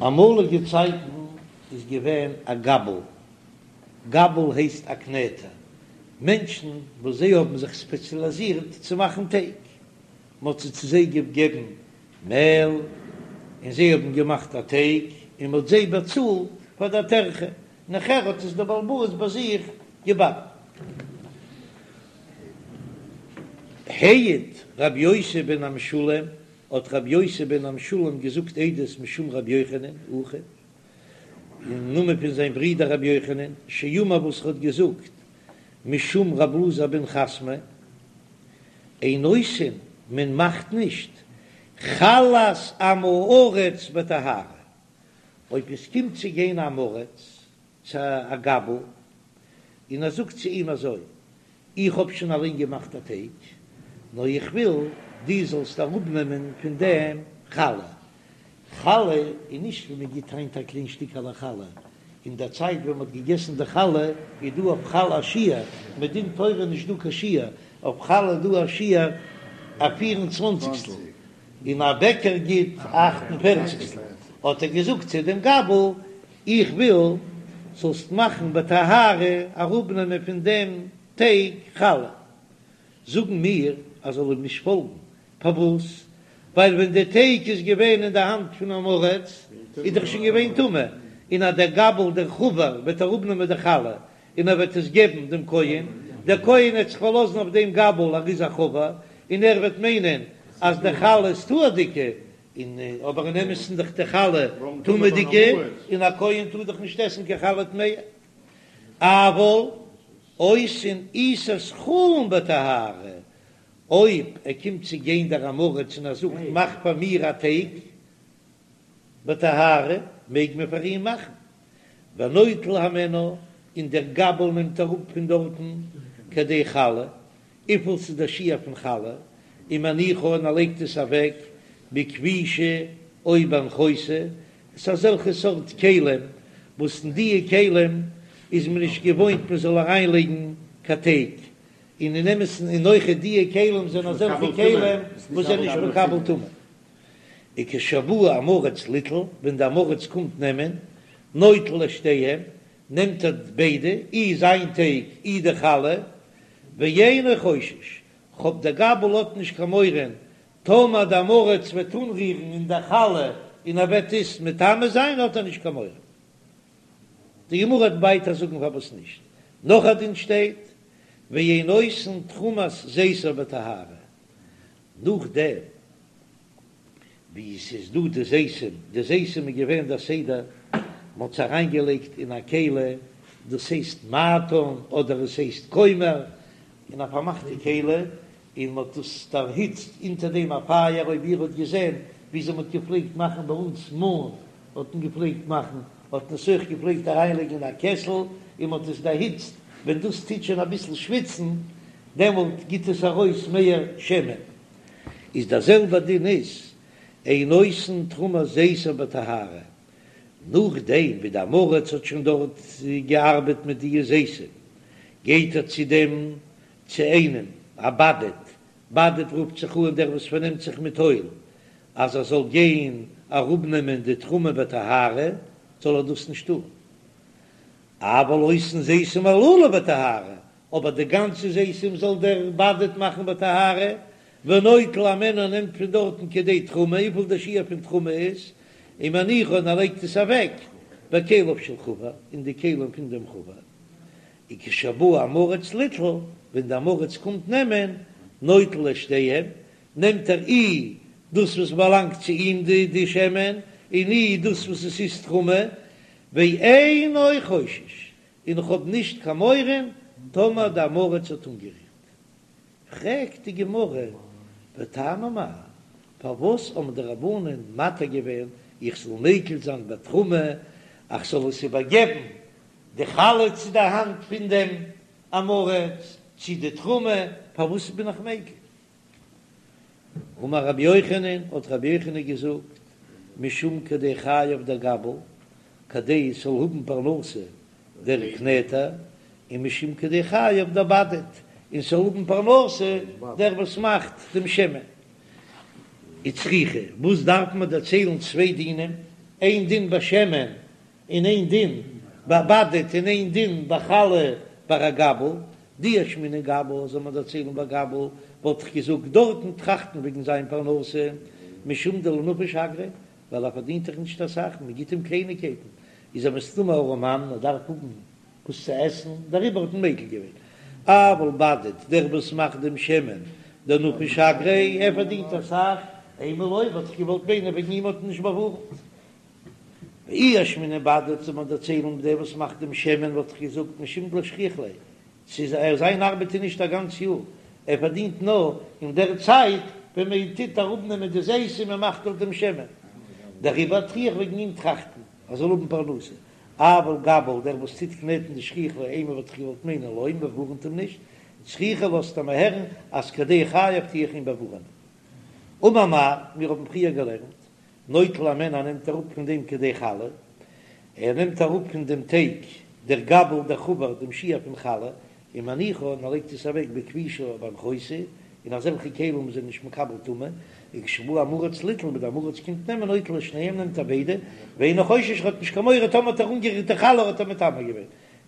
אמאליגע צייטן איז געווען א גבל, גבל הייסט א קנעטער, מענטשן וואס זיי האבן זיך ספעציאליזירט צו מאכן טייג, מען האט צו זיי געגעבן מעל און זיי האבן געמאכט א טייג און מען האט זיי באצאלט פאר דער טרחה, נאכער האט עס דער בעל הבית ביי זיך געבאקן. העיד רבי יוסי בן המשולם, האט רבי יוסי בן המשולם געזאגט עדות משום רבי יוחנן אחיו, אין נאמען פון זיין ברודער רבי יוחנן, שאמר וואס ער האט געזאגט משום רבי אלעזר בן חסמא, אין עושין, מען מאכט נישט חלת עם הארץ בטהרה, אויב עס קומט צו גיין אן עם הארץ צו א גבל, און ער זאגט צו אים אזוי, איך האב שוין אליין געמאכט א טייג, נאר איך וויל דו זאלסט אראפנעמען פון דעם חלה. חלה איז נישט ווי מען גיט היינט א קליין שטיקעלע חלה, אין דער צייט ווען מען האט געגעסן די חלה איז דא אויף חלה א שיעור, מדין תורה נישט דא קיין שיעור, אויף חלה איז דא א שיעור א פיר און צוואנציגסטל, און א בעקער גיט א אכט און פערציגסטל, האט ער געזאגט צו דעם גבל, איך וויל זאלסט מאכן בטהרה אראפנעמען פון דעם טייג חלה, זאגן מיר אז זאל אים נישט פאלגן, פארוואס? ווייל ווען די טייג איז געווען אין די האנט פון עם הארץ איז דאך שוין געווען טמא, און אז דער גבל דער חבר וועט אראפנעמען די חלה און ער וועט עס געבן דעם כהן, דער כהן וועט זיך פארלאזן אויף דעם גבל ער איז א חבר, און ער וועט מיינען אז די חלה איז טהור'דיגע, און אבער אין אמת'ן דאך די חלה טמא'דיגע, און א כהן טאר דאך נישט עסן קיין חלה טמאה. אבל עושין עיסת חולין בטהרה, אויב ער קומט צו גיין דער עם הארץ און ער זאגט מאך פאר מיר א טייג בטהרה, מעג מען פאר אים מאכן, ונוטל הימנה, און דער גבל נעמט אראפ פון דארטן כדי חלה, וויפיל ס'איז דער שיעור פון חלה, ומניחה און ער לייגט עס אוועק בכפישא או באנחותא, עס איז אזעלכע סארט כלים וואס אין דיע כלים איז מען נישט געוואוינט מען זאל אריין לייגן קיין טייג, און אין אמת'ן און אויכעט דיע כלים זענען אזעלכע כלים וואס זענען נישט מקבל טומאה. וכשבא עם הארץ ליטול, ווען די עם הארץ קומט נעמען, נוטל את שתיהם, נעמט ער ביידע, אי זיין טייג אי די חלה, ואינו חושש, כ'האב דער גבל האט נישט קיין מורא, טאמער די עם הארץ וועט אנרירן אין די חלה און ער וועט עס מטמא זיין האט ער נישט קיין מורא. די גמרא וועט ווייטער זאגן פארוואס נישט. נאך א דין שטייט, ואין עושין תרומת זיתיו בטהרה, נאכדעם ווי עס איז דא די זיתים, די זיתים איז געווען דער סדר, מען האט עס אריינגעלייגט אין א כלי, דאס הייסט מעטן אדער עס הייסט כומר, אין א פארמאכטע כלי, און מען האט דאס דערהיצט אונטער דעם א פייער, אויב איר האט געזען וויאזוי מען האט געפלעגט מאכן ביי אונז מאן האט מען געפלעגט מאכן, האט מען עס אויך געפלעגט אריינלייגן אין א קעסל און מען האט עס דערהיצט, ווען דאס טוט שוין אביסל שוויצן דעמאלט גיט עס ארויס מער שמן. איז דער זעלבער דין איז אין עושין תרומת זיתיו בטהרה, נאכדעם ווי די עם הארץ האט שוין דארט געארבעט מיט די זיתים, גייט ער צו דעם צו איינעם א בדד, בדד רופט זיך אן דער וואס פארנעמט זיך מיט אויל, אז ער זאל גיין אראפנעמען די תרומה בטהרה, זאל ער דאס נישט טון. אבל עושין זיתים הללו בטהרה, אבער די גאנצע זיתים זאל דער בדד מאכן בטהרה, ונוטל הימנה נעמט פון דארטן כדי תרומה, וויפיל דער שיעור פון תרומה איז, ומניחה און ער לייגט עס אוועק בכליו של חבר, אין די כלים פון דעם חבר. וכשבא עם הארץ ליטול, ווען די עם הארץ קומט נעמען, נוטל את שתיהם, נעמט ער אי דאס וואס באלאנגט צו אים די די שמן, און אי דאס וואס עס איז תרומה, ואינו חושש, און איך האב נישט קיין מורא טאמער די עם הארץ האט אנגערירט. פרעגט די גמרא, וטעמא מאי, פארוואס האבן די רבנן מתיר געווען איך זאל מיקל זיין בתרומה, איך זאל עס איבערגעבן די חלה צו די האנט פון דעם עם הארץ, צו די תרומה, פארוואס בין איך מיקל? אמר רבי יוחנן, האט רבי יוחנן געזאגט, משום כדי חייו דגבל, כדי עס זאל האבן פרנסה דער קנעטער, און משום כדי חייו דבדד, און ס'זאל האבן פרנסה דער וואס מאכט דעם שמן. וצריכא, וואס דארף מען דערציילן צוויי דינים? איין דין ביי שמן און איין דין ביי בדד און איין דין ביי חלה ביי א גבל, דאי אשמעינן גבל זאל מען דערציילן ביי גבל, וואלט איך געזאגט דארטן טראכטן וועגן זיין פרנסה, משום דלא נפיש אגריה, ווייל ער פארדינט דאך נישט אסאך, מען גיט אים קלייניגקייטן, איז ער מסתמא ארעמאן, ער דארף האבן וואס צו עסן, דעריבער האט מען מיקל געווען. אבל בדד, דער וואס מאכט דעם שמן, דנפיש אגריה, ער פארדינט אסאך, אימא לא, וואלט איך געוואלט מיינען וועגן אים האט מען נישט באווארנט. ואי אשמעינן בדד זאל מען דערציילן דער וואס מאכט דעם שמן וואלט איך געזאגט משום דלא שכיח ליה, ס'איז ער זיין ארבעט איז נישט א גאנץ יאר, ער פארדינט נאר אין דער צייט ווען מען טוט אראפנעמען די זיתים און מען מאכט אויף דעם שמן, דעריבער טו איך וועגן אים טראכטן ער זאל האבן פרנסה, אבל גבל דער וואס טוט קנעטן דשכיח ליה אימא וואלט איך געוואלט מיינען לא מען באווארנט אים נישט, צריכא לאזט ער מיר הערן אז כדי חייו טו איך אים באווארענען. אמר מר, מיר האבן פריער געלערנט נוטל הימנה נעמט אראפ פון דעם כדי חלה, ער נעמט אראפ פון דעם טייג דער גבל דער חבר דעם שיעור פון חלה, ומניחה און ער לייגט עס אוועק בכפישא או באנחותא, אין אזעלכע כלים וואס זענען נישט מקבל טומאה, וכשבא עם הארץ ליטול ווען דער עם הארץ קומט נעמען נוטל את שניהם נעמט ער ביידע, ואינו חושש ער האט נישט קיין מורא טאמער האט ער אנגערירט די חלה האט ער מטמא געווען.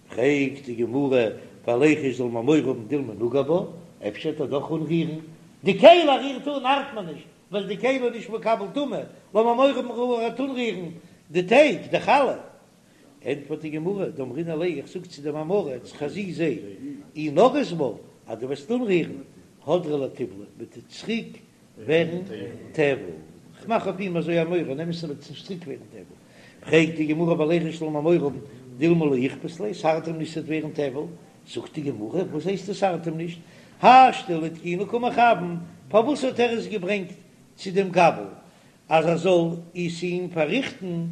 פרעגט די גמרא, וליחוש זאל מען מורא האבן דילמא נגע בה, אפשר וועט ער דאך אנרירן, די כלי ער רירט אן ארט מען נישט, ווייל די כלי איז נישט מקבל טומאה, לאמיר מורא האבן ער וועט אנרירן די טייג, די חלה. ענטפערט די גמרא, דאמרינן ליה, איך זאג צו דעם עם הארץ, חזי זע, אי נגעת בה, אז דו וועסט אנרירן, הדרא לטיבלא, וועט עס צוריק ווערן טבל. כ'מאך אויף אים אזוי א מורא, אין אמת'ן וועט עס נישט צוריק ווערן טבל. פרעגט די גמרא וליחוש זאל מען מורא האבן, דילמא לא איכפת ליה, ס'ארט אים נישט ס'וועט ווערן טבל. זאגט די גמרא, וואס הייסט עס ארט אים נישט? השתא לתקוני קא מכוון, פארוואס האט ער עס געברענגט צו דעם גבל אז ער זאל עס אים פארריכטן?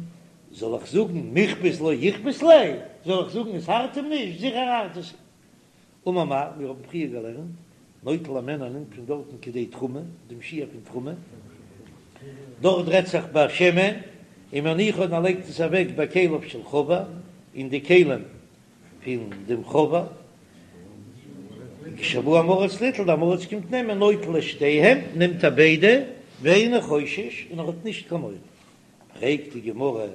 זאל איך זאגן מיכפת לא איכפת ליה? זאל איך זאגן עס ארט אים נישט? זיכער ארט עס אים. אמר מר, מיר האבן פריער געלערנט, נוטל הימנה נעמט פון דארטן כדי תרומה, דעם שיעור פון תרומה, דארט רעדט זיך ביי שמן, ומניחה און ער לייגט עס אוועק בכליו של חבר, אין די כלים פון דעם חבר, כשבא עם הארץ ליטול, דער עם הארץ קומט נעמען, נוטל את שתיהם, נעמט ער ביידע, ואינו חושש, און ער האט נישט קיין מורא. פרעגט די גמרא,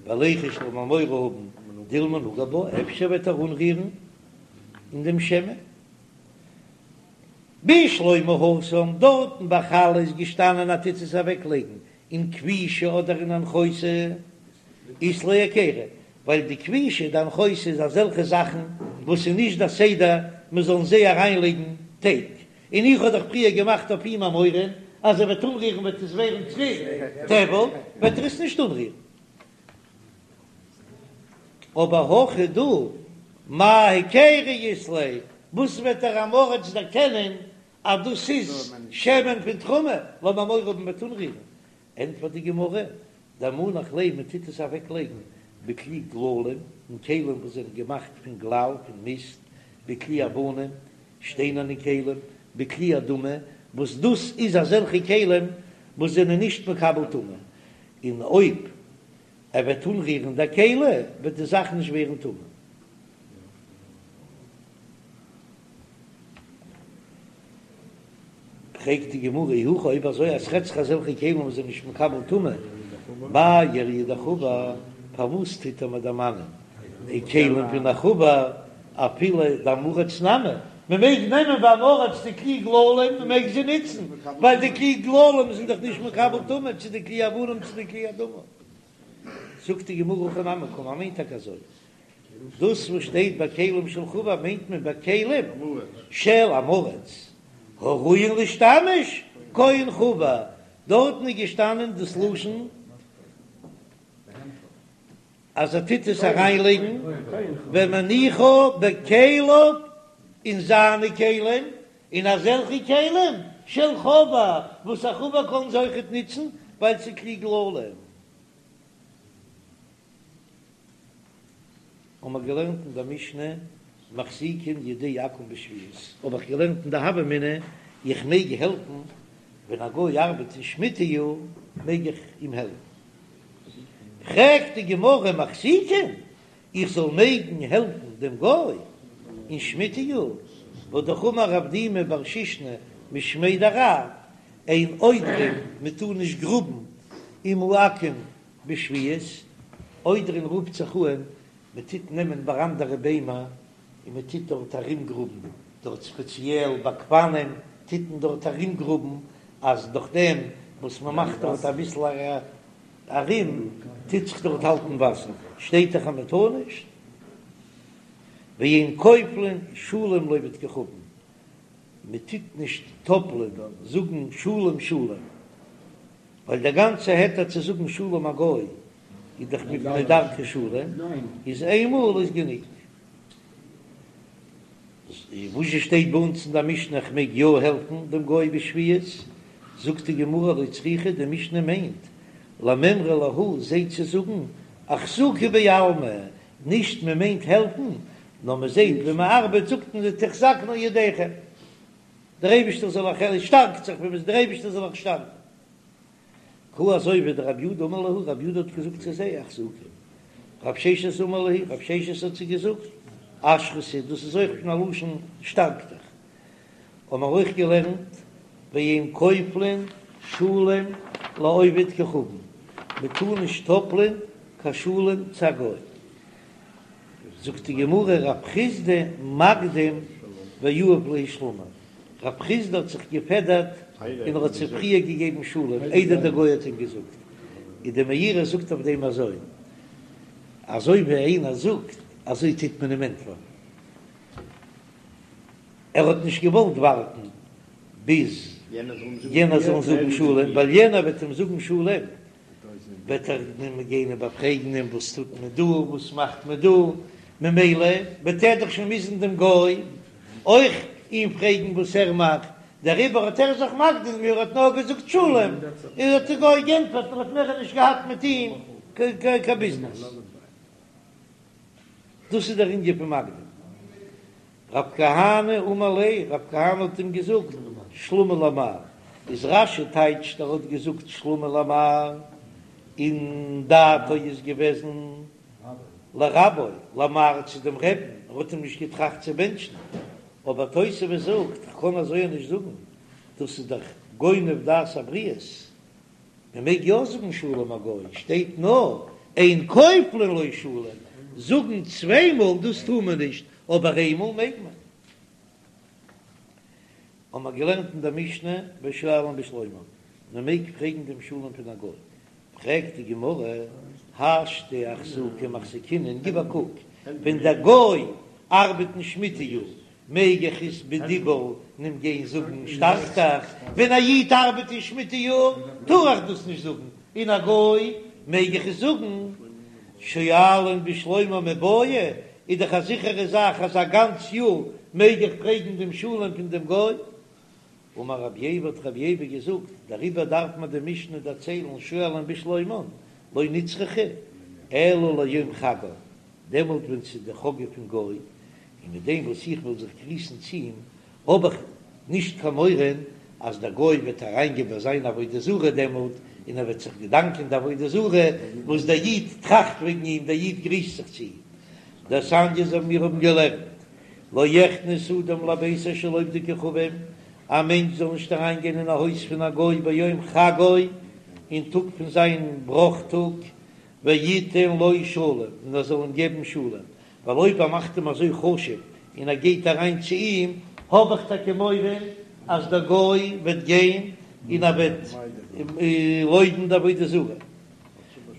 וליחוש זאל מען מורא האבן, דילמא נגע בה, אפשר וועט ער אנרירן אין דעם שמן? בשלמא התם, דארטן ביי חלה איז געשטאנען אז טוט עס אוועקלייגן אין כפישא אדער אין אנחותא, אית ליה היכרא, ווייל די כפישא די אנחותא איז אזעלכע זאכן וואס איז נישט די סדר מען זאל אין זיי אריינלייגן טייג, און איך האב דאך פריער געמאכט אויף אים א מורא אז ער וועט אנרירן וועט עס ווערן צוריק טבל, וועט ער עס נישט אנרירן. אבער הכא דא, מאי היכרא אית ליה, וואס וועט דער עם הארץ דערקענען אז דאס איז שמן פון תרומה, לאמיר מורא האבן מ'וועט אנרירן, ענטפערט די גמרא, דמנח ליה מען טוט עס אוועק לייגן בכלי גללים, אין כלים וואס זענען געמאכט פון גלל, פון מיסט, בכלי אבנים, שטיינערנע כלים, בכלי אדמה, וואס דאס איז אזעלכע כלים וואס זענען נישט מקבל טומאה, און אויב ער וועט אנרירן די כלי וועט די זאך נישט ווערן טמא. פרעגט די גמרא אי הכי אויב אזוי אז ס'רעדט זיך אזעלכע כלים וואס זענען נישט מקבל טומאה, מאי איריא דחבר, פארוואס טוט ער מיר דערמאנען די כלים פון א חבר אפילו דעם הארץ נמי, מען מעג נעמען ביים עם הארץ די כלי גללים, מען מעג זיי נוצן, ווייל די כלי גללים זענען דאך נישט מקבל טומאה, צו די כלי אבנים צו די כלי אדמה. זאגט די גמרא הכי נמי קאמר, מיינט טאקע אזוי, דאס וואס שטייט בכלים של חבר מיינט מען בכלים של עם הארץ הראויין להשתמש כהן חבר, דארטן איז געשטאנען דאס לשון אז ער טוט עס אריינלייגן ומניחה בכליו אין זיינע כלים, אין אזעלכע כלים של חבר וואס א חבר קען זיי אויכעט נוצן ווייל ס'איז כלי גללים. האבן מיר געלערנט אין דער משנה מחזיקין ידי עכו"ם בשביעית, האב איך געלערנט אין די הוה אמינא, איך מעג העלפן ווען א גוי ארבעט אין שמיטה יאר מעג איך אים העלפן, פרעגט די גמרא מחזיקין, איך זאל מעגן העלפן דעם גוי אין שמיטה יאר, והא אמר רב דימי בר שישנא משמיה דרב, אין עודרין, מען טאר נישט גראבן עם העכו"ם. בשביעית, עודרין רופט זיך אן, מען טוט נעמען ביי אנדערע ביימער און מען טוט דארט ארומגראבן, דארט ספעציעל ביי גפנים טוט מען דארט ארומגראבן, אז דורך דעם וואס מען מאכט דארט אביסל ארום טוט זיך דארט האלטן וואסער, שטייט דאך אז מען טאר נישט. ואין כופלין שלום לעובד כוכבים, מען טוט נישט טאפלען זאגן שלום שלום, ווייל דער גאנצע היתר צו זאגן שלום א גוי איז דאך מפני דרכי שלום, איז איינמאל איז גענוג. וואס שטייט ביי אונז אין דער משנה איך מעג יא העלפן דעם גוי בשביעית, זאגט די גמרא לא צריכא, די משנה מיינט למימרא להו זיי צו זאגן אחזוקו בעלמא, נישט מען מיינט העלפן, נאר מען זעט ווען מען ארבעט זאגט מען זיי תחזקנה ידיכם, דער אייבערשטער זאל אייך, שטארקט זיך ווען מען איז דער אייבערשטער זאל אייך שטארקן. כי הא אזוי ווי דרב יודא אמר להו, רב יודא האט געזאגט צו זיי אחזוקו, רב ששת אמר להו, רב ששת האט זיי געזאגט אשרתו, דאס איז אויך פון א לשון שטארק דיך, האבן מיר אויך געלערנט ואין כופלין שלום לעובד כוכבים, מען טאר נישט טאפלען קיין שלום צו א גוי. זאגט די גמרא רב חסדא מקדים ויהיב להו שלמא, רב חסדא האט זיך געפעדערט און ער האט זיי פריער געגעבן שלום איידער דער גוי האט אים געזאגט, און די מאירי זאגט אויף דעם אזוי, אזוי ווי איינער זאגט אזוי טוט מען אים ענטפערן, ער האט נישט געוואלט ווארטן ביז יענער זאל זאגן שלום, ווייל יענער וועט אים זאגן שלום וועט ער אים גיין איבערפרעגן אים וואס טוט מען דא, וואס מאכט מען דא, ממילא וועט ער דאך שוין מוזן דעם גוי אויך אים פרעגן וואס ער מאכט, דעריבער האט ער זיך מקדים געווען, ער האט נאר געזאגט שלום, און האט דער גוי גענטפערט און האט מער נישט געהאט מיט אים קיין ביזנעס. דאס איז דער ענין פון מקדים. רב כהנא אמר ליה, רב כהנא האט אים געזאגט, שלמא למר, איז רש"י טייטשט ער האט געזאגט שלמא למר, און דעתו איז געוועזן לרבו, למר צו דעם רעבן, ער האט אים נישט געטראכט צו בענטשן, אבער תוספות זאגט, כ'קען אזוי נישט זאגן, דאס איז דאך גונב דעת הבריות, מען מעג יא זאגן שלום א גוי, שטייט נאר אין כופלין לו שלום, זאגן צוויי מאל דאס טאר מען נישט, אבער איינמאל מעג מען. האבן מיר געלערנט אין דער משנה ושואלין בשלומן, מען מעג פרעגן דעם שלום פון א גוי, פרעגט די גמרא, השתא אחזוקי מחזקינן, גיב א קוק, ווען דער גוי ארבעט אין שמיטה יאר, מעג איך עס בדיבור אים גיין זאגן שטארק דיך, ווען א איד ארבעט אין שמיטה יאר טאר איך דאס נישט זאגן, און א גוי מעג איך עס זאגן. שואלין בשלומן מיבעיא, איז דאך א זיכערע זאך אז א גאנץ יאר מעג איך פרעגן דעם שלום פון דעם גוי. אמר רבי ייבא האט רבי ייבא געזאגט, דעריבער דארף מען די משנה דערציילן שואלין בשלומן, לא נצרכה אלא ליום חגו, דעמאלט ווען ס'איז די חגא פון גוי, און מיט דעם וואס איך וועל זיך גריסן צו אים, האב איך נישט קיין מורא אז דער גוי וועט אריינגיין ביי זיין עבודה זרה דעמאלט, און ער וועט זיך געדאנקען די עבודה זרה וואס דער איד טראכט וועגן אים, דער איד גריסט זיך צו אים. דתניא אזוי מיר האבן געלערנט, לא יכנס אדם לביתו של עובד כוכבים, א מענטש זאל נישט אריינגיין אין א הויז פון א גוי ביום חגו, אין טאג פון זיין בראך טאג, ויתן לו שלום, און ער זאל אים געבן שלום, ווייל אויב ער מאכט אים אזוי חשוב און ער גייט אריין צו אים, האב איך טאקע מורא אז דער גוי וועט גיין און ער וועט לויבן די עבודה זרה.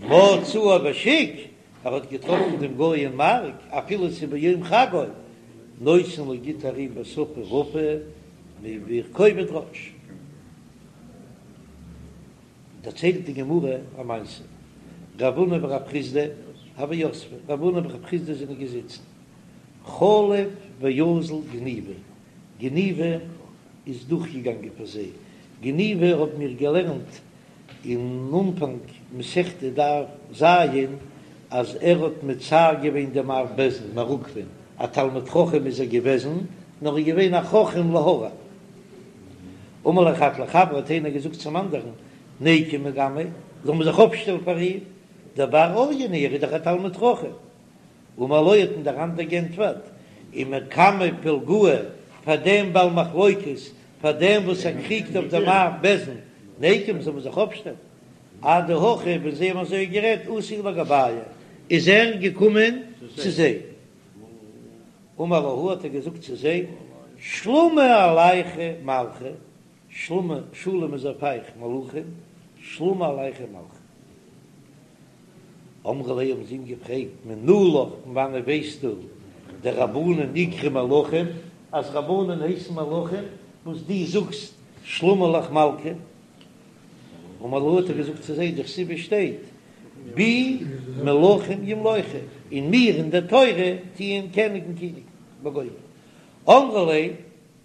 מצאו בשוק, ער האט געטראפן דעם גוי אין מארק, אפילו ס'איז ביום חגו, נותן לו גיט ער אים בשפה רפה ובכובד ראש. דערציילט די גמרא א מעשה, רב הונא ורב חסדא הוו יתבי, רב הונא און רב חסדא זענען געזיצן, חליף ואזיל גניבא, גניבא איז דורכגעגאנגען פאר זיי, גניבא האבן מיר געלערנט אין אנפאנג מסכת דף ז, אז ער האט מצער געווען דעם אב בית דין מר עוקבא'ן, א תלמיד חכם איז ער געוועזן, נאר ער איז געווען א חכם להרע. אמר ליה חד לחבריה האט איינער געזאגט צום אנדערן, ניקום מקמיה, זאל מען זיך אויפשטעלן פאר אים, דבר אוריין הוא, ער איז דאך א תלמיד חכם. אמר לו האט אים דער אנדער גענטפערט, ומקמי פלגאה, פאר דעם בעל מחלוקת, פאר דעם וואס ער קריגט אויף דעם אב בית דין, ניקום זאל מען זיך אויפשטעלן. אדהכי ווען זיי האבן אזוי גערעדט אתא לגבייהו איז ער געקומען צו זיי. אמר להו האט ער געזאגט צו זיי, שלמא עלייכו מלכי, שלמא, שלום איז אויף אייך מלכים, שלמא עלייכו מלכי. אמרו ליה האבן זיי אים געפרעגט, מנא לך, פון וואנעט ווייסטו דרבנן איקרו מלכים, אז רבנן הייסן מלכים, וואס דו זאגסט שלמא עלך מלכא? אמר להו האט ער געזאגט צו זיי, דכתיב שטייט בי מלכים ימלוכו, אין מיר אין דער תורה טוען קעניגן קיניגן וגומר. אמרו ליה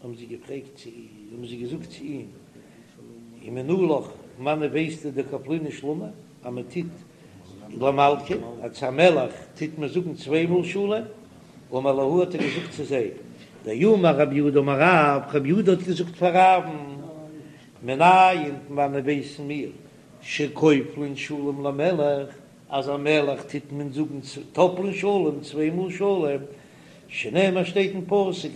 האבן זיי געפרעגט צו אים, האבן זיי געזאגט צו אים, ומנא לך, פון וואנעט ווייסטו דכפלינן שלמא, אז מען טוט למלכא, אז צו א מלך טוט מען זאגן צוויי מאל שלום, אמר להו האט ער געזאגט צו זיי, דאמר רב יהודה אמר רב, רב יהודה האט געזאגט פאר רב'ן, מנין פון וואנעט ווייסן מיר, שכופלין שלום למלך, אז א מלך טוט מען זאגן טאפלען שלום צוויי מאל שלום, שנאמר שטייט אין פסוק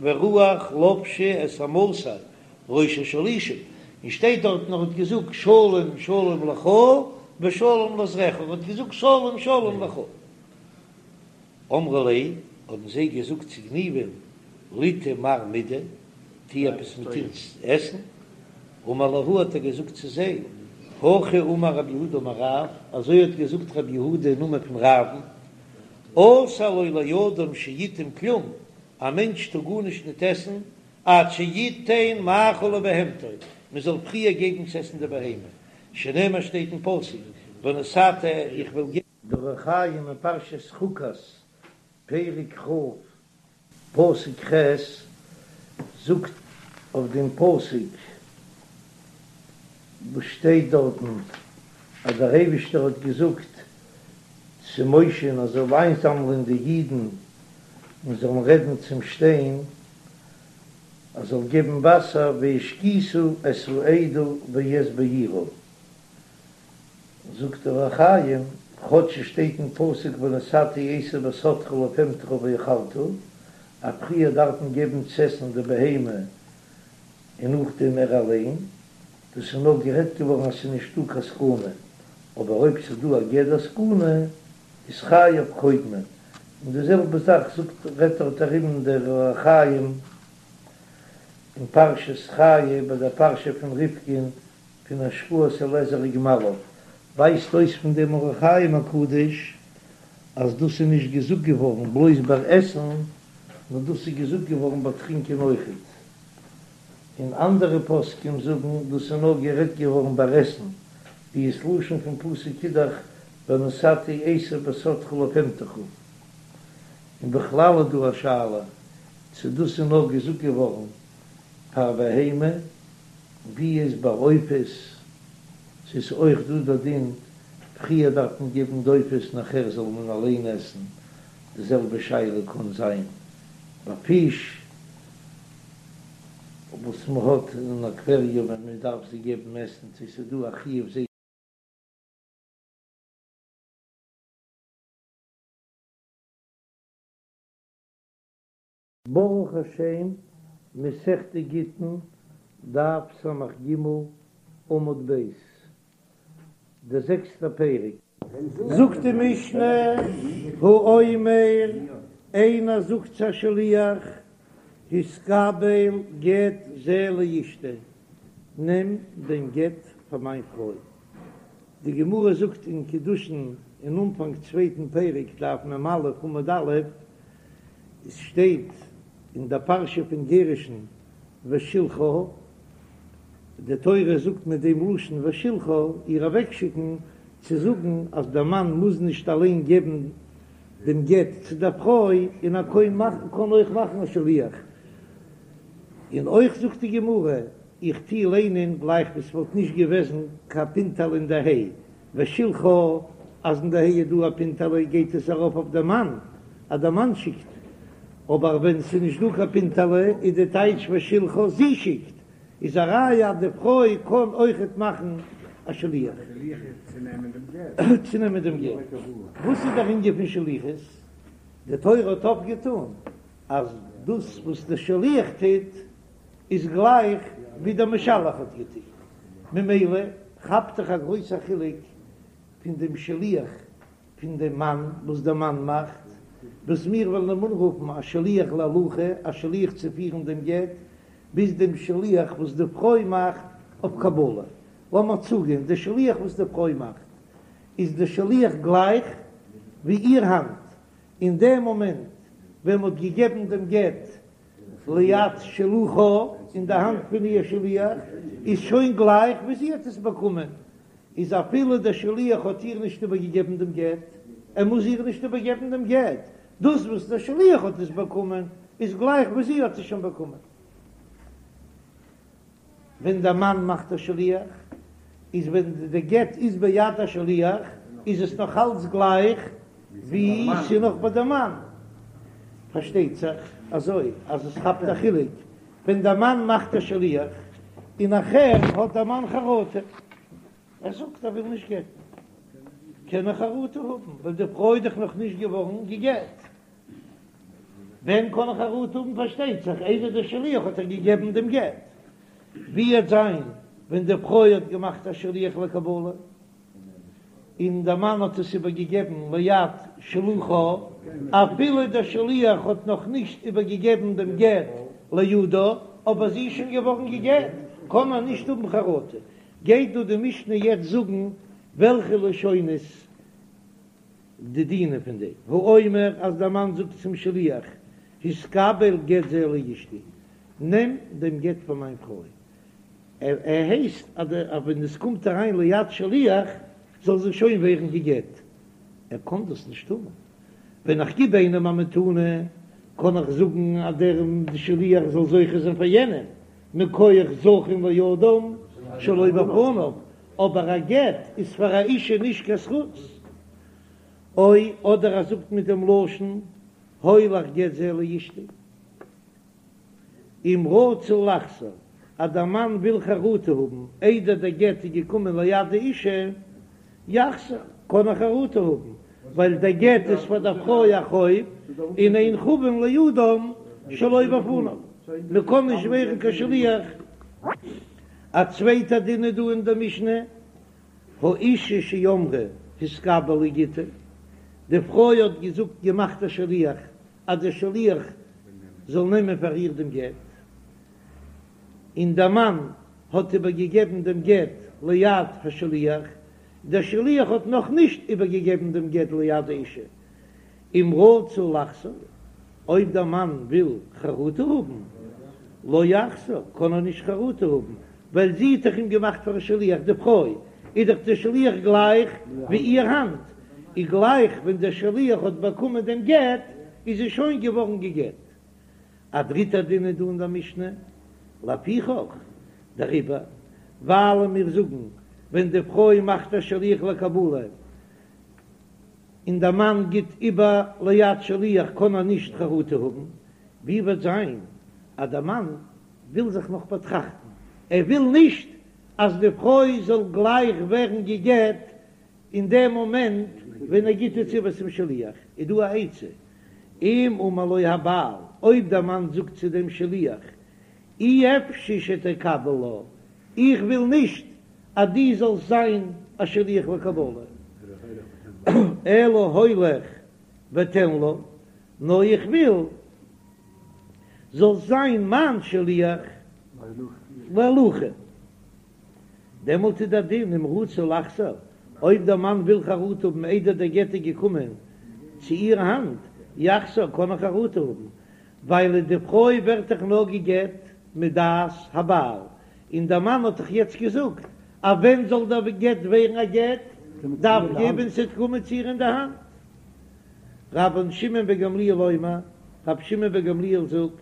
ורוח לבשה את עמשי ראש השלישים, און שטייט דארטן ער האט געזאגט שלום שלום לך ושלום לזרעך, ער האט געזאגט שלום שלום לך. אמרו ליה, האבן זיי געזאגט צו גניבא'ן, ליטעי מר מידי, טו עפעס מיט אונז עסן. אמר להו האט ער געזאגט צו זיי, הכי אמר רב יהודה אמר רב, אזוי האט געזאגט רב יהודה אין נאמען פון רב'ן, אסור לו לאדם שיטעום כלום, א מענטש טאר גארנישט ניט עסן, עד שיתן מאכל לבהמתו, מען זאל פריער געבן צו עסן די בהמה, שנאמר שטייט אין פסוק, ונתתי איך וועל געבן. דער אור החיים אין פרשת חוקת, פרק כ', פסוק ח', זאגט אויף דעם פסוק וואס שטייט דארטן אז דער אייבישטער האט געזאגט צו משה'ן אז ער זאל איינזאמלען די אידן און זאלן רעדן צום שטיין אז זאל געבן וואסער והשקית את העדה ואת בעירה. זאגט דער אור החיים, כאטש עס שטייט אין פסוק ונתתי עשב בשדך לבהמתך ואכלת, אז פריער דארף מען געבן צו עסן די בהמה און נאכדעם ער אליין, דאס איז נאר גערעדט געווארן אז ס'איז נישטא קיין סכנה, אבער אויב ס'איז דא א גדר סכנה איז חייו קודמין, און די זעלבע זאך זאגט רעדט דארט ארום דער אור החיים אין פרשת חיי ביי דער פרשה פון רבקה'ן פון השקאת אליעזר וגמליו, ווייזט אויס פון דעם אור החיים הקדוש אז דאס איז נישט געזאגט געווארן בלויז ביי עסן, נאר דאס איז געזאגט געווארן ביי טרינקען אויכעט. און אנדערע פוסקים זאגן דאס איז נאר גערעדט געווארן ביי עסן, ווי ס'לשון פון פסוק איז דאך ונתתי עשב בשדך לבהמתך. און בכלל איז דא א שאלה צו דאס איז נאר געזאגט געווארן פאר בהמה, ווי איז ביי עופות, ס'איז אויך דא דער דין, פריער דארף מען געבן די עופות נאכער זאל מען אליין עסן, די זעלבע שאלה קען זיין ביי פיש וואס מען האט אין אקוועריום ווען מען דארף זיי געבן עסן, צו ס'איז דא א חיוב זיי. ברוך השם, מסכת גיטין, דף ס"ג, עמוד ב', דער זעקסטער פרק. זאגט די משנה, האומר, איינער זאגט צו א שליח, התקבל גט זה לאשתי, נעם דעם גט פאר מיין פרוי. די גמרא זאגט אין קידושין אין אנפאנג צווייטן פרק דף מ"א עמוד א', עס שטייט אין דער פרשה פון גירושין ושלחה, די תורה זאגט מיט דעם לשון ושלחה איר אוועקשיקן, צו זאגן אז דער מאן מוז נישט אליין געבן דעם גט צו דער פרוי, און ער קען מאכן קען אויך מאכן א שליח. און אויך זאגט די גמרא, איך טוה ליינען גלייך ווי ס'וואלט נישט געוועזן קיין פינטעלע אין די ה', ושלחה, אז אין די ה' איז דא א פינטעלע גייט עס ארויף אויף די מאן, אז די מאן שיקט, אבער ווען ס'איז נישט דא קיין פינטעלע איז די טייטש ושלחה זי שיקט, איז א ראיה אז די פרוי קען אויכעט מאכן א שליח צו נעמען דעם גט. וואס איז דער ענין פון שליחות? די תורה האט אויפגעטאן אז דאס וואס דער שליח טוט איז גלייך ווי דער משלח האט געטון, ממילא. כאפט דאך א גרויסע חילוק פון דעם שליח פון דעם מאן וואס דער מאן מאכט, וואס מיר וועלן אים אנרופן א שליח להולכה, א שליח צו פירן דעם גט, ביז דעם שליח וואס די פרוי מאכט אויף קבלה. לאמיר זאגן, די שליח וואס די פרוי מאכט, איז די שליח גלייך ווי איר האנט, אין דעם מאמענט ווען מ'האט געגעבן דעם גט ליד שלוחה, אין די האנט פון איר שליח, איז שוין גלייך ווי זי האט עס באקומען, איז אפילו דער שליח האט איר נישט איבערגעגעבן דעם גט, ער מוז איר נישט איבערגעבן דעם גט, דאס וואס דער שליח האט עס באקומען איז גלייך ווי זי האט עס שוין באקומען. ווען דער מאן מאכט א שליח, איז ווען די גט איז ביד השליח, איז עס נאך אלץ גלייך ווי ס'איז נאך ביי די מאן. פארשטייט זיך אזוי אז עס כאפט א חילוק ווען דער מאן מאכט א שליח און נאכהער האט דער מאן חרטה, ער זאגט ער וויל נישט גט'ן, קען ער חרטה האבן ווייל די פרוי איז דאך נאך נישט געווארן גע'גט. ווען קען ער חרטה האבן? פארשטייט זיך איידער דער שליח האט איר געגעבן דעם גט. ווי וועט זיין ווען די פרוי האט געמאכט א שליח לקבלה און דער מאן האט עס איבערגעגעבן ליד שלוחה, אפילו דער שליח האט נאך נישט איבערגעגעבן דעם גט לידה, אבער זי איז שוין געווארן גע'גט, קען ער נישט האבן חרטה. גייט דא די משנה יעצט זאגן וועלכע לשונות די דינים פון דעם האומר אז דער מאן זאגט צום שליח התקבל גט זה לאשתי, נעם דעם גט פאר מיין פרוי, ער הייסט אז ווען עס קומט אריין ליד שליח זאל זי שוין ווערן גע'גט, ער קען דאס נישט טון, ווען איך גיב איינעם א מתנה קען איך זאגן אז דער שליח זאל זוכה זיין פאר יענעם, מכח זכין לאדם שלא בפניו, אבער א גט איז פאר א אישה נישט קיין זכות. או אדער ער זאגט מיט דעם לשון הולך גט זה לאשתי. אם רצה לחזור, אז דער מאן וויל חרטה האבן איידער דער גט איז געקומען ליד די אישה, יחזור, קען ער חרטה האבן, ווייל דער גט איז פאר דער פרוי א חוב, און אין חבין לאדם שלא בפניו, מען קען נישט ווערן קיין שליח. א צווייטע דין איז דא אין דער משנה, האישה שאמרה התקבל לי גיטי, די פרוי האט געזאגט געמאכט א שליח אז דער שליח זאל נעמען פאר איר דעם גט, און דער מאן האט איבערגעגעבן דעם גט ליד השליח, דער שליח האט נאך נישט איבערגעגעבן דעם גט ליד האישה, אם רצה לחזור, אויב דער מאן וויל חרטה האבן, לא יחזור, קען ער נישט חרטה האבן, ווייל זי האט דאך אים געמאכט פאר א שליח, די פרוי איז דאך דער שליח גלייך ווי איר האנט, איז גלייך ווען דער שליח האט באקומען דעם גט, איז זי שוין געווארן גע'גט. א דריטער דין איז דא אין דער משנה, לפיכך, דעריבער, ווייל מיר זאגן, ווען די פרוי מאכט א שליח לקבלה, און דער מאן גיט איבער ליד שליח קען ער נישט חרטה האבן, ווי וועט זיין אז דער מאן וויל זיך נאך באטראכטן, ער וויל נישט אז די פרוי זאל גלייך ווערן גע'גט אין דעם מאמענט ווען ער גיט עס איבער צום שליח, איז דא א עצה, אם אמר לו הבעל, אויב דער מאן זאגט צו דעם שליח, אי אפשי שתקבל לה, איך וויל נישט אז דו זאלסט זיין א שליח לקבלה, אלא הולך ותן לה, נאר איך וויל זאלסט זיין מיין שליח להולכה. דעמאלט איז דער דין אם רצה לחזור, אויב דער מאן וויל חרטה האבן איידער דער גט איז געקומען צו איר האנט, יחזור, קען ער חרטה האבן, ווייל די פרוי ווערט דאך נאר גע'גט מדעת הבעל, און דער מאן האט דאך יעצט געזאגט אז ווען זאל דער גט ווערן א גט, דווקא ווען ס'וועט קומען צו איר אין די האנט. רבן שמעון בן גמליאל אומר, רבי שמעון בן גמליאל זאגט,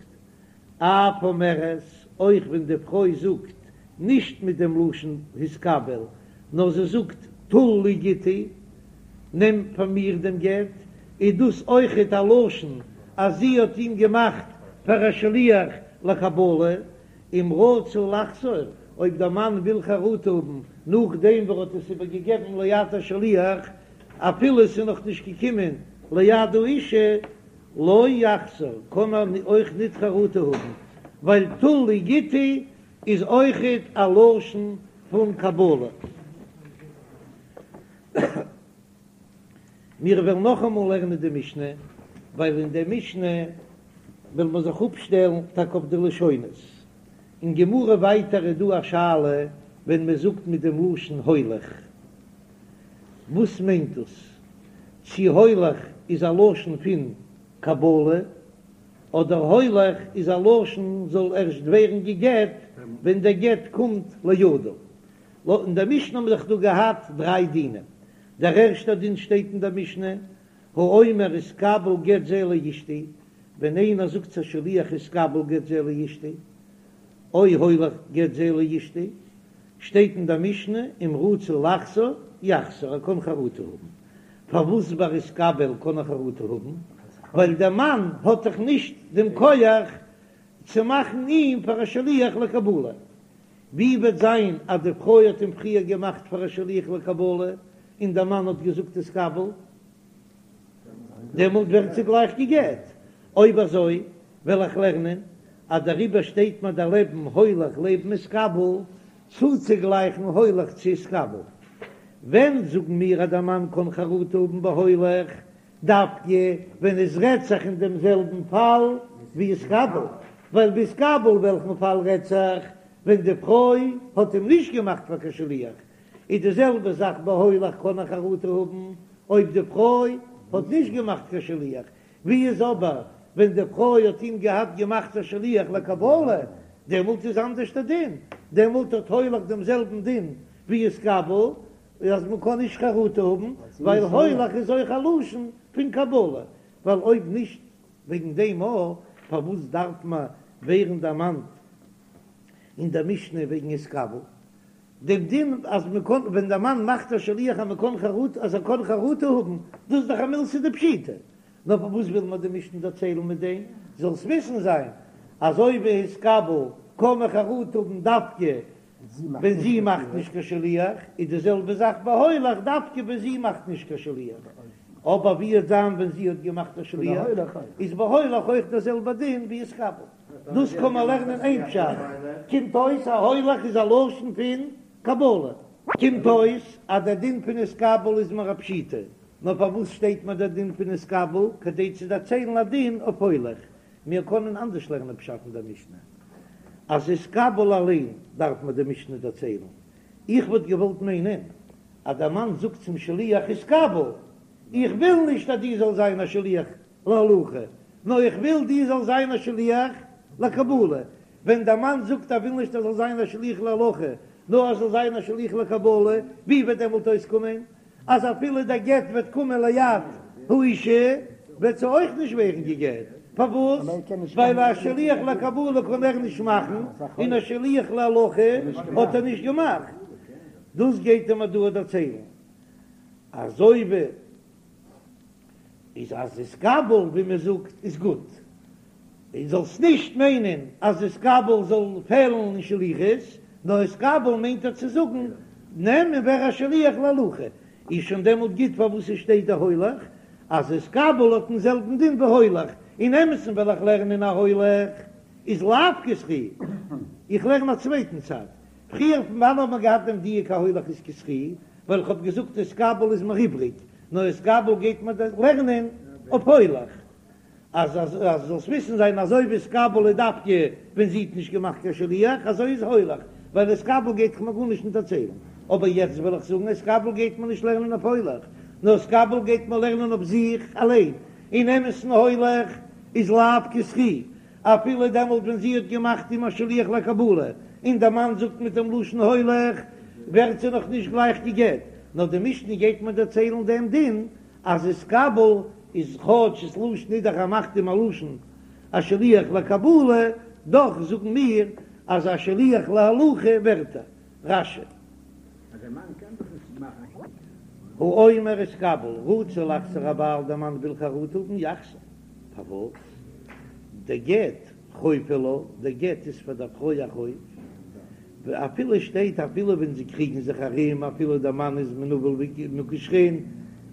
אף אומרת, אויך ווען די פרוי זאגט נישט מיט דעם לשון התקבל, נאר זי זאגט טול לי גיטי, נעם פאר מיר דעם גט, איז דאס אויכעט א לשון אז זי האט אים געמאכט פאר א שליח לקבלה, אם רצה לחזור, אויב דער מאן וויל חרטה האבן נאכדעם וואס ער האט עס איבערגעגעבן ליד השליח, אפילו עס איז נאך נישט געקומען ליד האישה, לא יחזור, קען ער אויך ניט חרטה האבן, ווייל טול לי גיטי איז אויכעט א לשון פון קבלה. מיר וועלן נאכאמאל לערנען די משנה, ווייל אין די משנה וועלן מיר זיך אפשטעלן טאקע אויף די לשונות. אין גמרא ווייטער איז דא א שאלה ווען מען זאגט מיט דעם לשון הולך, וואס מיינט דאס? צי הולך איז א לשון פון קבלה, אדער הולך איז א לשון זאל ערשט ווערן גע'גט ווען דער גט קומט לידו. לויט אין דער משנה האבן מיר דאך דא געהאט דריי דינים, דער ערשטער דין שטייט אין דער משנה, האומר התקבל גט זה לאשתי, ווען איינער זאגט צו א שליח התקבל גט זה לאשתי, או הולך גט זה לאשתי, שטייט אין דער משנה אם רצה לחזור יחזור, ער קען חרטה האבן. פארוואס ביי התקבל קען ער חרטה האבן? ווייל דער מאן האט דאך נישט דעם כח צו מאכן אים פאר א שליח לקבלה. ווי וועט זיין אז די פרוי האט אים פריער געמאכט פאר א שליח לקבלה און דער מאן האט געזאגט התקבל, דעמאלט ווערט זי גלייך גע'גט. אויב אזוי וועל איך לערנען אז דעריבער שטייט מיר דערלעבן הולך לעבן התקבל, צוצוגלייכן הולך צו התקבל. ווען זאגן מיר אז דער מאן קען חרטה האבן ביי הולך, דווקא ווען עס רעדט זיך אין דעם זעלבן פאל ווי התקבל, ווייל ביי התקבל וועלכן פאל רעדט זיך ווען די פרוי האט אים נישט געמאכט פאר קיין שליח, איז די זעלבע זאך ביי הולך קען ער חרטה האבן אויב די פרוי האט נישט געמאכט קיין שליח, ווי איז אבער ווען די פרוי האט אים געהאט געמאכט א שליח לקבלה, דעמאלט איז אנדערש דער דין, דעמאלט האט הולך דעם זעלבן דין ווי התקבל, אז מען קען נישט חרטה האבן, ווייל הולך איז אויך א לשון פון קבלה, ווייל אויב נישט וועגן דעם א, פארוואס דארף מען ווערן דערמאנט אין דער משנה וועגן התקבל? דעם דין אז מען קען ווען דער מאן מאכט א שליח אז מען קען חרטה אז ער קען חרטה האבן, דאס איז דאך א מילתא דפשיטא, נאר פארוואס וויל מיר די משנה דערציילן מיט דעם, זאלסט וויסן זיין אז אזוי ווי התקבל קען מען חרטה האבן דווקא ווען זי מאכט נישט קיין שליח, איז די זעלבע זאך ביי הולך דווקא ווען זי מאכט נישט קיין שליח, אבער ווי וועט זיין ווען זי האט געמאכט א שליח, איז ביי הולך אויך דער זעלבער דין ווי התקבל. דאס קען מען לערנען איין פשט, קומט אויס אז הולך איז א לשון פון קבלה. קומט אויס אז דער דין פון התקבל איז מיר א פשיטא, נאר פארוואס שטייט מיר דער דין פון התקבל? כדי צו דערציילן א דין אויף הולך. מיר קענען אנדערש לערנען פשט אין דער משנה, אז התקבל אליין דארף מיר די משנה דערציילן. איך וואלט געוואלט מיינען אז דער מאן זאגט צום שליח התקבל, איך וויל נישט אז דו זאלסט זיין א שליח להולכה, נאר איך וויל דו זאלסט זיין א שליח לקבלה. ווען דער מאן זאגט ער וויל נישט ער זאל זיין א שליח להולכה, נאר ער זאל זיין א שליח לקבלה, ווי וועט דעמאלט אויסקומען אז אפילו דער גט וועט קומען ליד האישה, וועט זי אויך נישט ווערן גע'גט? פארוואס? ווייל א שליח לקבלה קען ער נישט מאכן, און א שליח להולכה האט ער נישט געמאכט. דאס גייט ער מיר דא דערציילן, אזוי ווי איז אז התקבל ווי מען זאגט איז גוט, און זאלסט נישט מיינען אז התקבל זאל פעלן אין שליחות, נאר התקבל מיינט ער צו זאגן נעם און ווער א שליח להולכה, איז שוין דעמאלט גוט פארוואס עס שטייט דער הולך, אז התקבל האט דעם זעלבן דין ווי הולך, אין אמת'ן וועל איך לערנען אז הולך איז לאו כזכי, איך לערן א צווייטן צד, פריער פון וואנען האט מען געהאט דעם דיוק אז הולך איז כזכי, ווייל איך האב געזאגט התקבל איז מיר איבריג, נאר התקבל גייט מען לערנען אויף הולך, אז אז זאלסט וויסן זיין אזוי ווי התקבל איז דווקא ווען זי האט נישט געמאכט קיין שליח אזוי איז הולך, ווייל התקבל גייט דאך מיר גארנישט נישט דערציילן, אבער יעצט וויל איך זאגן התקבל גייט מען נישט לערנען אויף הולך, נאר התקבל גייט מען לערנען אויף זיך אליין, אין אמת'ן הולך איז לאו כזכי, אפילו דעמאלט ווען זי האט געמאכט אים א שליח לקבלה, און דער מאן זאגט מיט דעם לשון הולך, ווערט זי נאך נישט גלייך גע'גט, נאר די משנה גייט מיר דערציילן דעם דין אז התקבל איז כאטש ס'לשון איז דאך ער מאכט אים א לשון א שליח לקבלה, דאך זאגן מיר אז א שליח להולכה ווערט ער. רש"י. האומר התקבל, רצה לחזור הבעל דער מאן וויל חרטה האבן יחזור, פארוואס? דגט חוב הוא לה, דער גט איז פאר דער פרוי א חוב, אפילו שטייט אפילו ווען זיי קריגן זיך ארום אפילו דער מאן איז מנוול ומוכה שחין,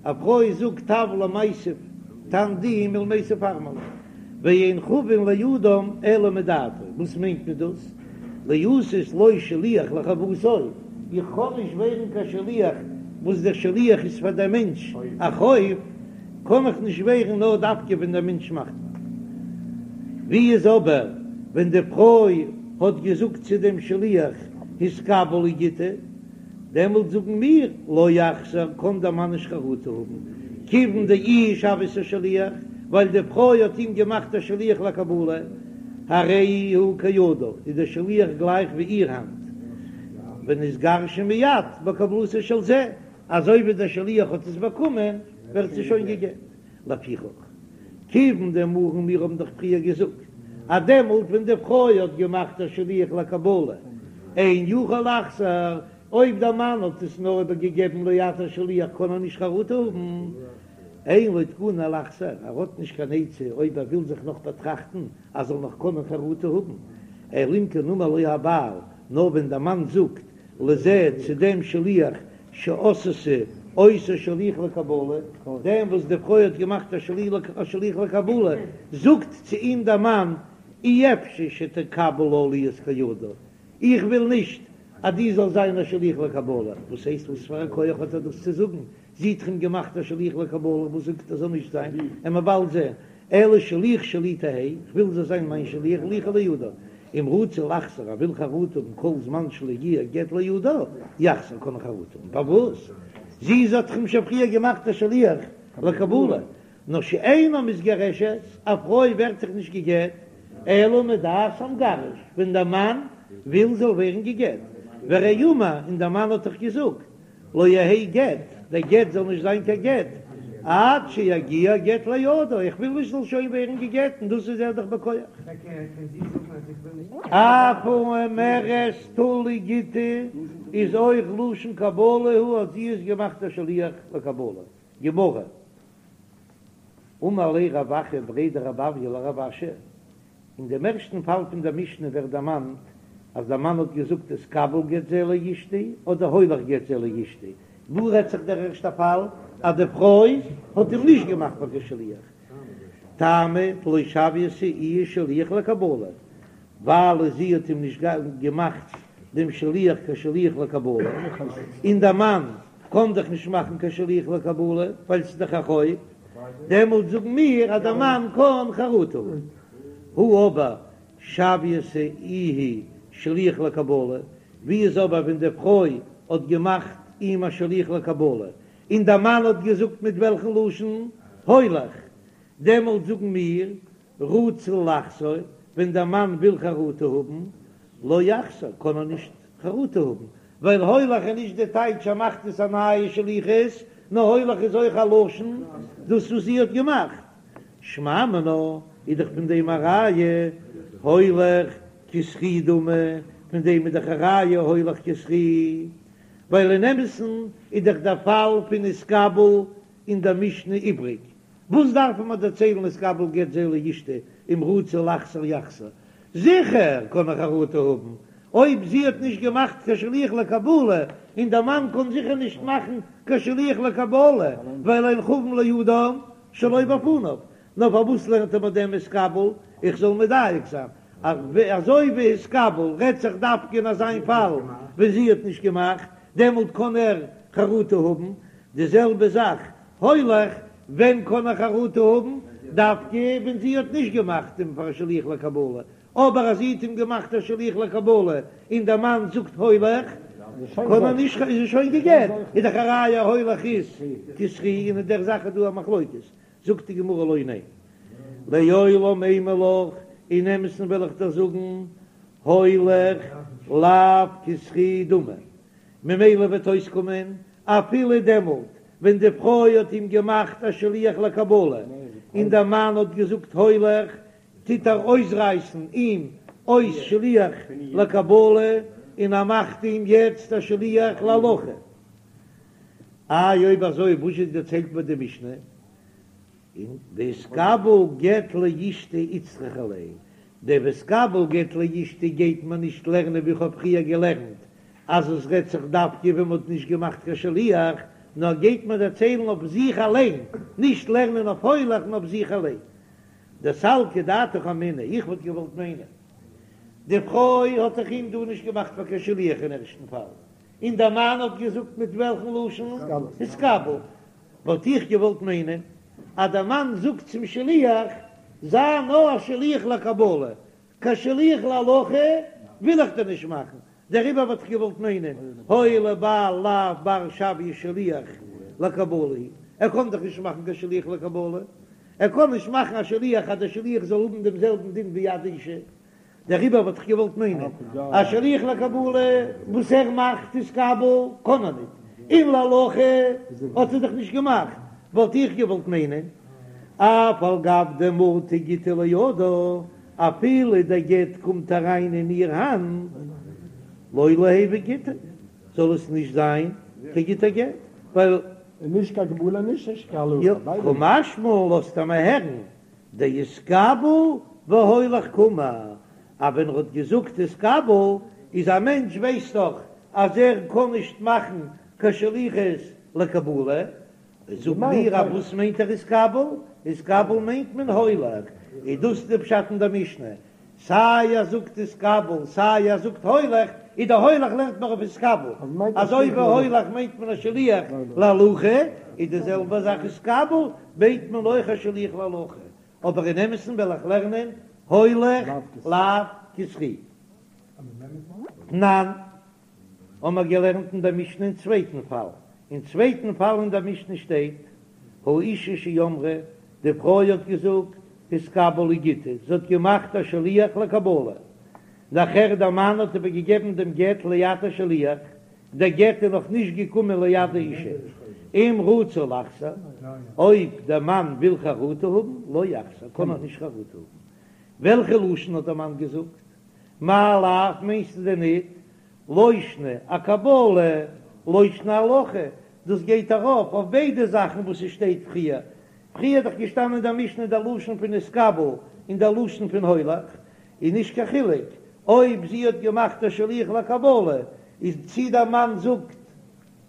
א פרוי זאגט טב למיתב טן די מלמיתב ארמלו, ואין חבין לאדם אלא מדעתו, וואס מיינט מען דאס? להיות לו שליח לחובתו, איך קען נישט ווערן קיין שליח. וואס דער שליח איז פאר דער מענטש א חוב, קען איך נישט ווערן נאר דווקא ווען דער מענטש מאכט. ווי איז אבער ווען די פרוי האט געזאגט צו דעם שליח התקבל לי גיטא, דעמאלט זאגן מיר לא יחזור, קען דער מאן נישט חרטה האבן, כיוון דאיהי שויתיה שליח, ווייל די פרוי האט אים געמאכט א שליח לקבלה, הרי הוא כידה, איז דער שליח גלייך ווי איר האנט, ונתגרשה מיד בקבלתו של זה, אזוי ווי דער שליח האט עס באקומען ווערט זי שוין גע'גט. לפיכך, כיוון דאמרן מיר האבן דאך פריער געזאגט אז דעמאלט ווען די פרוי האט געמאכט א שליח לקבלה אין יכול לחזור, אויב דער מאן האט עס נאר איבער געגעבן ליד השליח קען ער נישט חרטה האבן, אין לו תקנה לחזור, ער האט נישט קיין עצה אויב ער וויל זיך נאך באטראכטן אז זאל נאך קענען חרטה האבן, אלא אם כן אמר לו הבעל, נאר ווען דער מאן זאגט לזה צו דעם שליח שעשתה אותו שליח לקבלה, דעם וואס די פרוי האט געמאכט א שליח לקבלה, זאגט צו אים דער מאן, אי אפשי שתקבל לה להיות כידה, איך וויל נישט אז דו זאלסט זיין א שליח לקבלה, וואס הייסט וואס פאר א כח האט ער דאס צו זאגן, זי האט אים געמאכט א שליח לקבלה, וואס זאגט ער זאל נישט זיין, וועלן מיר באלד זען, אלא שליח שלי תהא, איך וויל זאל זיין מיין שליח וליכא לידה, אם רצה לחזור ער וויל חרטה האבן כל זמן שלא הגיע גט לידה, יחזור קען ער חרטה האבן, פארוואס? זי האט דאך אים שוין פריער געמאכט א שליח לקבלה, נאר שאינה מתגרשת, א פרוי ווערט זיך נישט גע'גט, אלא מדעת המגרש, ווען דער מאן וויל זאל ווערן גע'גט, והרי אמר, און דער מאן האט דאך געזאגט, לא יהא גט, דער גט זאל נישט זיין קיין גט, עד שיגיע גט לידו, איך וויל נישט זאל שוין ווערן גע'גט, און דאס איז ער דאך בכח. אף האומרת טול לי גיטי איז אויך לשון קבלה הוא אז זי איז געמאכט א שליח לקבלה. גמרא. אמר ליה רב אחא בריה דרב אויא לרב אשי, אין דעם ערשטן פאל פון דער משנה ווערט דערמאנט אז דער מאן האט געזאגט התקבל גט זה לאשתי אדער הולך גט זה לאשתי, וואו רעדט זיך דער ערשטער פאל אז די פרוי האט אים נישט געמאכט פאר קיין שליח? טעמא דלא שויתיה איהי שליח לקבלה, ווייל זי האט אים נישט געמאכט דעם שליח קיין שליח לקבלה, און דער מאן קען דאך נישט מאכן קיין שליח לקבלה ווייל ס'איז דאך א חוב, דעמאלט זאגן מיר אז דער מאן קען חרטה האבן. הא אבער שויתיה איהי שליח לקבלה, ווי איז אבער ווען די פרוי האט געמאכט אים א שליח לקבלה, און דער מאן האט געזאגט מיט וועלכן לשון הולך, דעמאלט זאגן מיר רצה לחזור, ווען דער מאן וויל חרטה האבן, לא יחזור, קען ער נישט חרטה האבן, ווייל הולך איז נישט די טייטש ער מאכט עס א נייע שליחות, נאר הולך איז אויך א לשון דאס וואס זי האט געמאכט. שמע מינה איז דאך פון דעם א ראיה הולך כזכי דמי, פון דעם איז דאך א ראיה הולך כזכי, ווייל אין אמת'ן איז דאך דער פאל פון נתקבל אין דער משנה איבריג, וואס דארף מען דערציילן התקבל גט זה לאשתי אם רצה לחזור יחזור, זיכער קען ער חרטה האבן אויב זי האט נישט געמאכט קיין שליח לקבלה, און דער מאן קען זיכער נישט מאכן קיין שליח לקבלה, ווייל אין חבין לאדם שלא בפניו, נאר פארוואס לערנט ער מיר דעם התקבל, איך זאל מדייק זיין אז אזוי ווי התקבל רעדט זיך דווקא אין אזיין פאל ווען זי האט נישט געמאכט, דעמאלט קען ער חרטה האבן, די זעלבע זאך הולך, ווען קען ער חרטה האבן? דווקא ווען זי האט נישט געמאכט אים פאר א שליח לקבלה, אבער אז זי האט אים געמאכט א שליח לקבלה און דער מאן זאגט הולך, קען ער נישט, איז ער שוין גע'גט, איז דאך א ראיה הולך איז כזכי, און אין דער זאך איז דא א מחלוקת, זאגט די גמרא לא ניין, לעולם אימא לך, אין אמת'ן וועל איך דיר זאגן, הולך לאו כזכי דמי, ממילא וועט אויסקומען אפילו דעמאלט ווען די פרוי האט אים געמאכט א שליח לקבלה און דער מאן האט געזאגט הולך, טוט ער אויסרייסן אים אויס שליח לקבלה און ער מאכט אים יעצט א שליח להולכה. איי אויב אזוי וואס זשע דערציילט מיר די משנה? און והתקבל גט לאשתי איצטריכא ליה, דער והתקבל גט לאשתי גייט מען נישט לערנען ווי איך האב פריער געלערנט אז עס רעדט זיך דווקא ווען מ'האט נישט געמאכט קיין שליח, נאר גייט מען דערציילן אויף זיך אליין, נישט לערנען אויף הולך נאר אויף זיך אליין. דסלקא דעתך אמינא, איך וואלט געוואלט מיינען, די פרוי האט דאך אים דא נישט געמאכט פאר קיין שליח אין ערשטן פאל, און דער מאן האט געזאגט מיט וועלכן לשון? התקבל. וואלט איך געוואלט מיינען אז דער מאן זאגט צום שליח, זיי נאר א שליח לקבלה, קיין שליח להולכה וויל איך דיר נישט מאכן, דעריבער וואלט איך געוואלט מיינען, הואיל ובעל לאו בר שויי שליח לקבלה הוא, ער קען דאך נישט מאכן קיין שליח לקבלה, ער קען נישט מאכן א שליח אז דער שליח זאל האבן דעם זעלבן דין ווי יד אשה, דעריבער וואלט איך געוואלט מיינען א שליח לקבלה וואס ער מאכט התקבל קען ער ניט, און להולכה האט ער דאך נישט געמאכט, וואלט איך געוואלט מיינען אף על גב דמטא גיטא לידה, אפילו דער גט קומט אריין אין איר האנט, לא ליהוי גיטא, זאל עס נישט זיין קיין גוטער גט, ווייל. נישט קיין קבלה נישט קיין הולכה, ביידע קא משמע לן לאזט ער מיר הערן דהתקבל והולך קאמר, אז ווען ער האט געזאגט התקבל איז א מענטש ווייסט דאך אז ער קען נישט מאכן קיין שליחות לקבלה, זאג מיר אז וואס מיינט ער התקבל? התקבל מיינט מען הולך, איז דאס די פשט אין די משנה, סיי ער זאגט התקבל סיי ער זאגט הולך, איז די הולך לערנט מען אויף התקבל, אזוי ווי הולך מיינט מען א שליח להולכה, איז די זעלבע זאך התקבל מיינט מען אויך א שליח להולכה, אבער אין אמת'ן וועל איך לערנען הולך לאו כזכי. תנן, האמער געלערנט אין דער משנה אין צווייטן פאל, אין צווייטן פאל אין דער משנה שטייט, האישה שאמרה, די פרוי האט געזאגט, התקבל לי גיטי, זי האט געמאכט א שליח לקבלה, נאכער דער מאן האט איבער געגעבן דעם גט ליד השליח, דער גט איז נאך נישט געקומען ליד האישה, אם רצה לחזור, אויב דער מאן וויל חרטה האבן, לא יחזור, קען ער נישט חרטה האבן. וועלכע לשון האט דער מאן געזאגט? מאי לאו מיינסטו דען ניט לא שנא אקבלה לא שנא אהלכה, דאס גייט ארויף אויף ביידע זאכן וואס עס שטייט פריער, פריער איז דאך געשטאנען אין דער משנה דער לשון פון התקבל און דער לשון פון הולך, איז נישט קיין חילוק אויב זי האט געמאכט א שליח לקבלה, איז צי דער מאן זאגט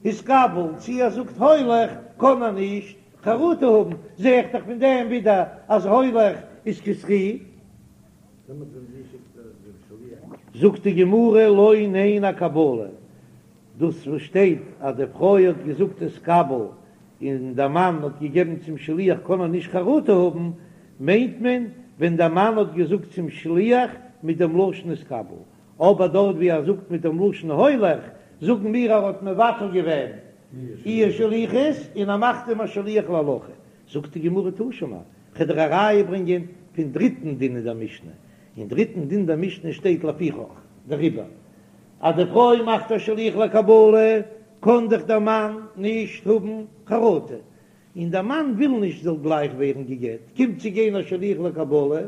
התקבל צי ער זאגט הולך קען ער נישט חרטה האבן, זע איך דאך פון דעם ווידער אז הולך איז כזכי. זאגט די גמרא לא ניין אקבלה, דאס וואס שטייט אז די פרוי האט געזאגט התקבל און דער מאן האט געגעבן צום שליח קען ער נישט חרטה האבן, מיינט מען ווען דער מאן האט געזאגט צום שליח מיט דעם לשון התקבל, אבער דארט ווי ער זאגט מיט דעם לשון הולך, זאגן מיר ער האט מבטל געווען איר שליחות און ער מאכט אים א שליח להולכה, זאגט די גמרא תא שמע, כ'וועל דיר א ראיה ברענגען פון דריטן דין אין דער משנה, אין דריטן דין דער משנה שטייט לפיכך, דעריבער אז די פרוי מאכט א שליח לקבלה קען דאך דער מאן נישט האבן חרטה, און דער מאן וויל נישט זאל גלייך ווערן גע'גט, קומט צו גיין א שליח לקבלה,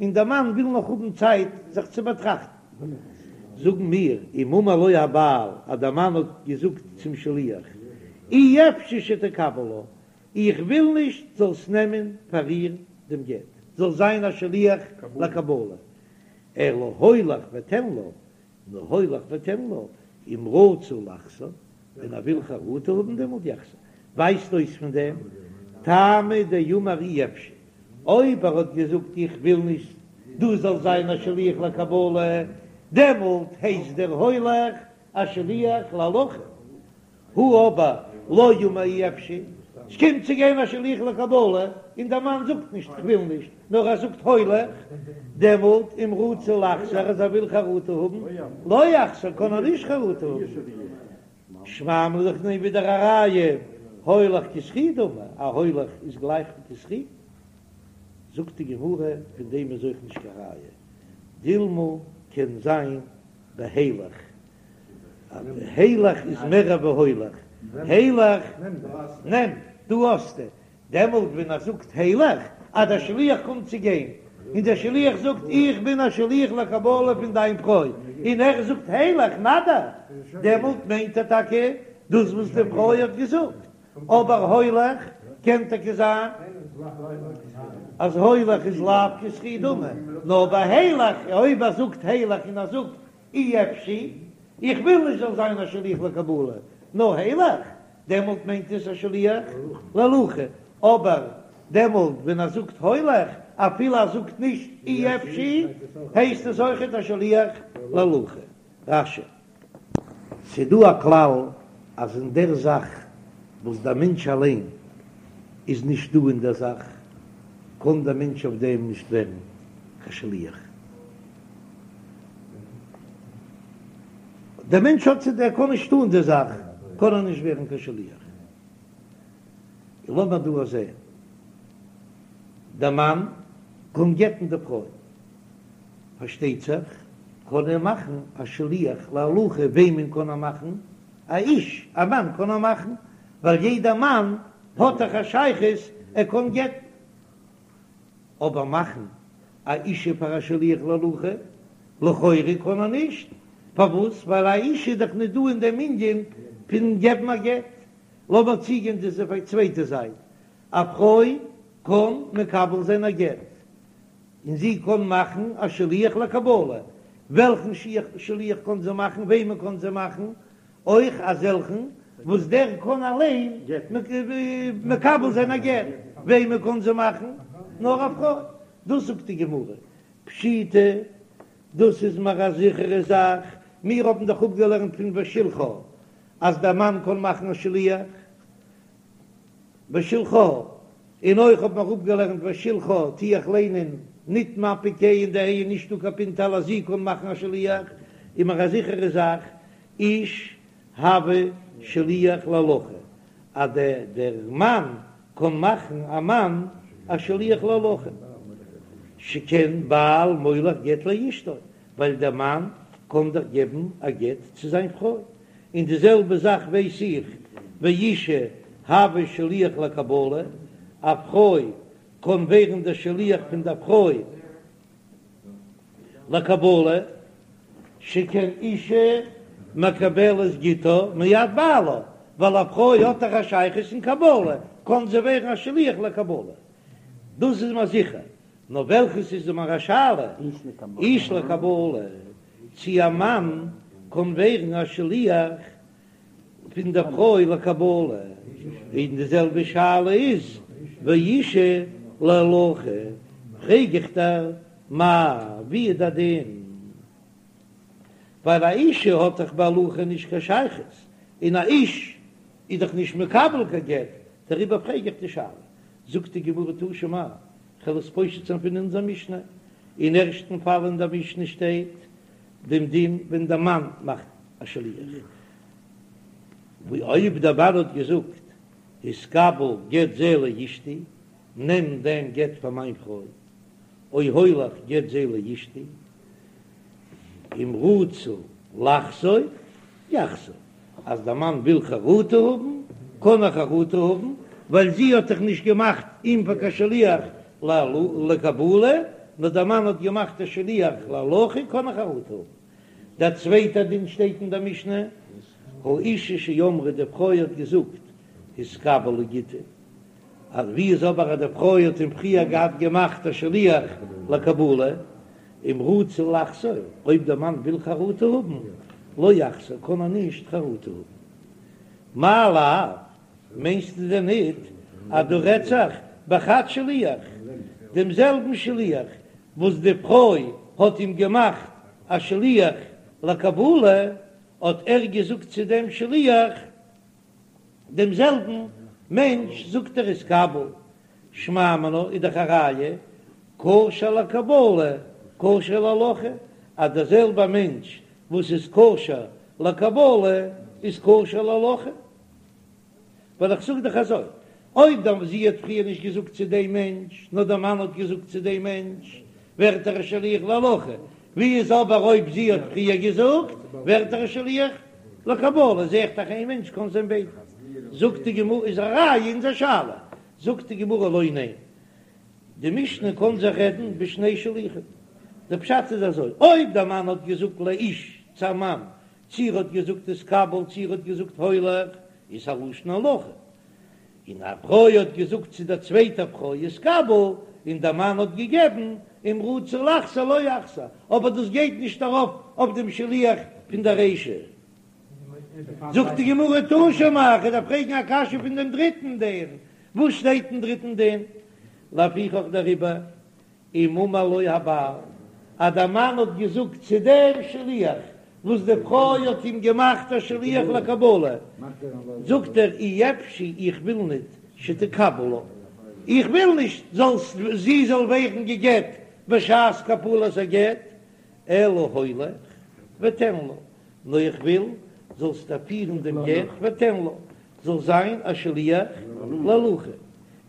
און דער מאן וויל נאך האבן צייט זיך צו באטראכטן. זאגן מיר, אם אמר לו הבעל, אז דער מאן האט געזאגט צום שליח, אי אפשי שתקבל לה, איך וויל נישט זאלסט נעמען פאר איר דעם גט, זאלסט זיין א שליח לקבלה, אלא הולך ותן לה, נאר הולך ותן לה, אם רצה לחזור, ווען ער וויל חרטה האבן דעמאלט יחזור, ווייזט אויס פון דעם, טעמא דאמר אי אפשי, אויב ער האט געזאגט איך וויל נישט דו זאלסט זיין א שליח לקבלה, דעמאלט הייסט דער הולך א שליח להולכה. הא אבער לא אמר אי אפשי, ס'קומט צו גיין א שליח לקבלה און דער מאן זאגט נישט כ'וויל נישט, נאר ער זאגט הולך, דעמאלט אם רצה לחזור אז ער וויל חרטה האבן, לא יחזור קען ער נישט חרטה האבן. שמע מינה איך נעם ווידער א ראיה, הולך כזכי דמי, א הולך איז גלייך ווי כזכי. זאגט די גמרא, פון דעם איז אויך נישט קיין ראיה, דילמא קען זיין בהילך, אז הילך איז מער ווי הולך, הילך, נעם, דא האסטו, דעמאלט ווען ער זאגט הילך, אז דער שליח קומט צו גיין, און דער שליח זאגט איך בין א שליח לקבלה פון דיין פרוי, און ער זאגט הילך, נא דיר, דעמאלט מיינט ער טאקע דאס וואס די פרוי האט געזאגט, אבער הולך קען טאקע זיין אז הולך איז לאו כזכי דמי, נאר ביי הילך, אויב ער זאגט הילך און ער זאגט אי אפשי, איך וויל נישט זאל זיין א שליח לקבלה, נאר הילך, דעמאלט מיינט עס א שליח להולכה, אבער דעמאלט ווען ער זאגט הולך, אפילו ער זאגט נישט אי אפשי, הייסט עס אויכעט א שליח להולכה. רש"י. ס'דא א כלל אז אין דער זאך וואס דער מענטש אליין איז נישט דא אין דער זאך, קען דער מענטש אויף דעם נישט ווערן קיין שליח. דער מענטש האט צו דער קען נישט טון די זאך, קען ער נישט ווערן קיין שליח. לאמיר דא זען, דער מאן קען גט'ן די פרוי, פארשטייט זיך קען ער מאכן א שליח להולכה, וועמען קען ער מאכן? א איש, א מאן קען ער מאכן, ווייל יעדער מאן האט דאך א שייכות ער קען גט'ן, אבער מאכן א אישה פאר א שליח להולכה, לכאורה קען ער נישט, פארוואס? ווייל א אישה איז דאך נישט דא אין דעם ענין פון געבן א גט. לאמיר צוגיין צו די צווייטע זייט, א פרוי קען מקבל זיין א גט, און זי קען מאכן א שליח לקבלה, וועלכן שליח קען זי מאכן, וועמען קען זי מאכן, אויך אזעלכן וואס דער קען אליין מקבל זיין א גט, וועמען קען זי מאכן, נאר א פרוי, דאס זאגט די גמרא, פשיטא, דאס איז מיר א זיכערע זאך, מיר האבן דאך אפגעלערנט פון ושלחה אז דער מאן קען מאכן א שליח ושלחה, און אויך האט מען אפגעלערנט ושלחה טו איך ליינען ניט מפיק ה' אין די ה' איז נישטא קיין פינטעלע אז זי קען מאכן א שליח, איז מיר א זיכערע זאך איש הוי שליח להולכה אז דער מאן קען מאכן א מאן א שליח להולכה, שכן בעל מוליך גט לאשתו, ווייל דער מאן קען דאך געבן א גט צו זיין פרוי, און די זעלבע זאך ווייס איך ואישה הוי שליח לקבלה, א פרוי קען ווערן דער שליח פון דער פרוי לקבלה, שכן אישה מקבלת גיטה מיד בעלה, ווייל א פרוי האט דאך א שייכות אין קבלה, קען זי ווערן א שליח לקבלה, דאס איז מיר זיכער, נאר וועלכעס איז מיר א שאלה, איש לקבלה, צי א מאן קען ווערן א שליח פון דער פרוי לקבלה, און די זעלבע שאלה איז ואישה להולכה, פרעג איך דיר מאי, ווי איז דער דין? ווייל א אישה האט דאך בהולכה נישט קיין שייכות, און א איש איז דאך נישט מקבל קיין גט, דעריבער פרעג איך די שאלה. זאגט די גמרא תא שמע, כ'וועל עס פושט זיין פון אונזער משנה, אין ערשטן פאל אין דער משנה שטייט דעם דין ווען דער מאן מאכט א שליח, ווי אויב דער מאן האט געזאגט התקבל גט זה לאשתי, נעם דעם גט פאר מיין פרוי, או הולך גט זה לאשתי, אם רצה לחזור יחזור, אז דער מאן וויל חרטה האבן, קען ער חרטה האבן, ווייל זי האט דאך נישט געמאכט אים פאר קיין שליח לקבלה, נאר דער מאן האט געמאכט א שליח להולכה, קען ער חרטה האבן. דער צווייטער דין שטייט אין דער משנה, האישה שאמרה, די פרוי האט געזאגט, התקבל לי גיטי, אז ווי איז אבער אז די פרוי האט אים פריער געהאט געמאכט א שליח לקבלה, אם רצה לחזור, אויב דער מאן וויל חרטה האבן, לא יחזור, קען ער נישט חרטה האבן. מאי לאו, מיינסטו דען ניט אז דא רעדט זיך בחד שליח, דעם זעלבן שליח וואס די פרוי האט אים געמאכט א שליח לקבלה, האט ער געזאגט צו דעם שליח, דעם זעלבן מענטש זאגט ער התקבל, שמע מינה איז דאך א ראיה כשר לקבלה כשר להולכה, אז דער זעלבער מענטש וואס איז כשר לקבלה איז כשר להולכה, ווייל איך זאג דאך אזוי, אויב דער זי האט פריער נישט געזאגט צו דעם מענטש, נאר דער מאן האט געזאגט צו דעם מענטש, ווערט ער א שליח להולכה, ווי איז אבער אויב זי האט פריער געזאגט, ווערט ער א שליח לקבלה, זע איך דאך איין מענטש קען זיין ביידע. זאגט די גמרא, איז א ראיה אונזער שאלה, זאגט די גמרא לא ניין, די משנה קען זיך רעדן בשני שלוחים, די פשט איז אזוי, אויב דער מאן האט געזאגט לאיש צו א מאן, צי ער האט געזאגט התקבל צי ער האט געזאגט הולך, איז א לשון הולכה, און א פרוי האט געזאגט צו דער צווייטער פרוי התקבל, און דער מאן האט געגעבן, אם רצה לחזור לא יחזור, אבער דאס גייט נישט ארויף אויף דעם שליח פון דער רישא. זאגט די גמרא תא שמע, איך דארף פרעגן א קשיא פון דעם דריטן דין, וואס שטייט אין דריטן דין? לפיכך דעריבער אם אמר לו הבעל, אז דער מאן האט געזאגט צו דעם שליח. וואס די פרוי האט אים געמאכט א שליח לקבלה, זאגט ער אי אפשי איך וויל ניט שתקבל לה, איך וויל נישט זאלסט זי זאל ווערן גע'גט בשעת קבלת הגט, אלא הולך ותן לה, נאר איך וויל זאלסט פירן דעם גט ותן לה, זאל זיין א שליח להולכה,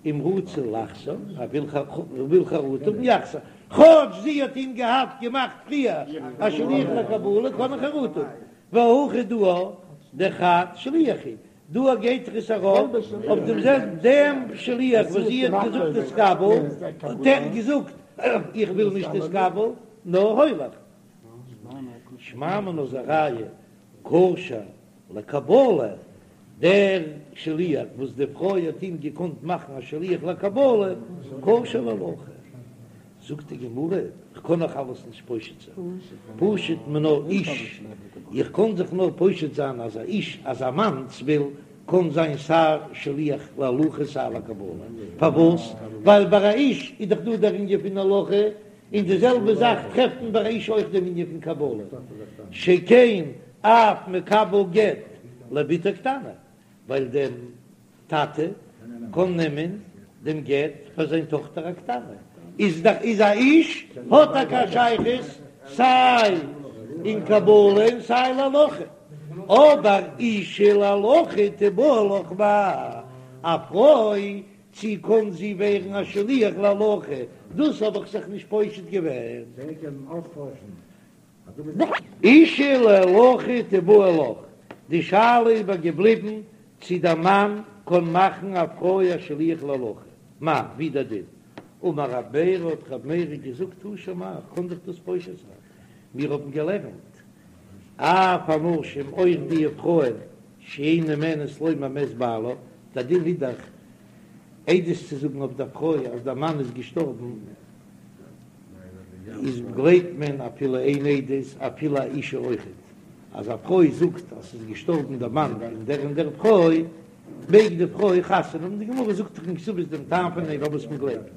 אם רצה לחזור, ער וויל חרטה האבן יחזור, כאטש זי האט אים געהאט געמאכט פריער א שליח לקבלה קען ער חרטה האבן, והכא דא דחד שליח הוא, דא גייט דאך עס ארויף אויף דעם זעלבן דעם שליח וואס זי האט געזאגט תתקבל, האט ער געזאגט איך וויל נישט תתקבל נאר הולך. שמע מינה איז א ראיה כשר לקבלה, דער שליח וואס די פרוי האט אים געקאנט מאכן א שליח לקבלה, כשר להולכה. זאגט די גמרא, איך קען נאך אלעס נישט פושט זיין, פשט מינה איש, איך קען זיך נאר פושט זיין אז א איש, אז א מאנסביל קען זיין סיי שליח להולכה סיי לקבלה, פארוואס? ווייל ביי א איש איז דאך דא דער ענין פון הולכה, און די זעלבע זאך טרעפט מען ביי א איש אויך דעם ענין פון קבלה, שכן אב מקבל גט לבתו קטנה, ווייל דער טאטע קען נעמען דעם גט פאר זיין טאכטער א קטנה, איז דאך איז א איש האט טאקע א שייכות סיי אין קבלה און סיי להולכה, אבער אישה להולכה תיבעי לך מאי, א פרוי צי קאָן זי ווערן אַ שליח להולכה? דאָס האָב איך זיך נישט פּושט געווען. אישה להולכה תיבעי לך, די שאלה איז אבער געבליבן צי דער מאַן קאָן מאַכן אַ פרוי אַ שליח להולכה. מאי, ווי דער דין? אמר רב מרי, האָט רב מרי געזאָגט, תא שמע, איך קאָן זיך דאָס פּושט זיין. מיר האָבן געלערנט, אף הנשים, אויך די פרויען, שאין נאמנות לומר מת בעלה, דער דין איז דאך עדות צו זאגן אויף דער פרוי אז דער מאן איז געשטארבן, איז גלייבט מען אפילו איין עדות, אפילו א אישה אויכעט, אז א פרוי זאגט אז ס'איז געשטארבן דער מאן פון דער און דער פרוי, מעג די פרוי חתונה האבן, די גמרא זאגט דאך אין כתובות דעם טעם פון דעם פארוואס מען גלייבט,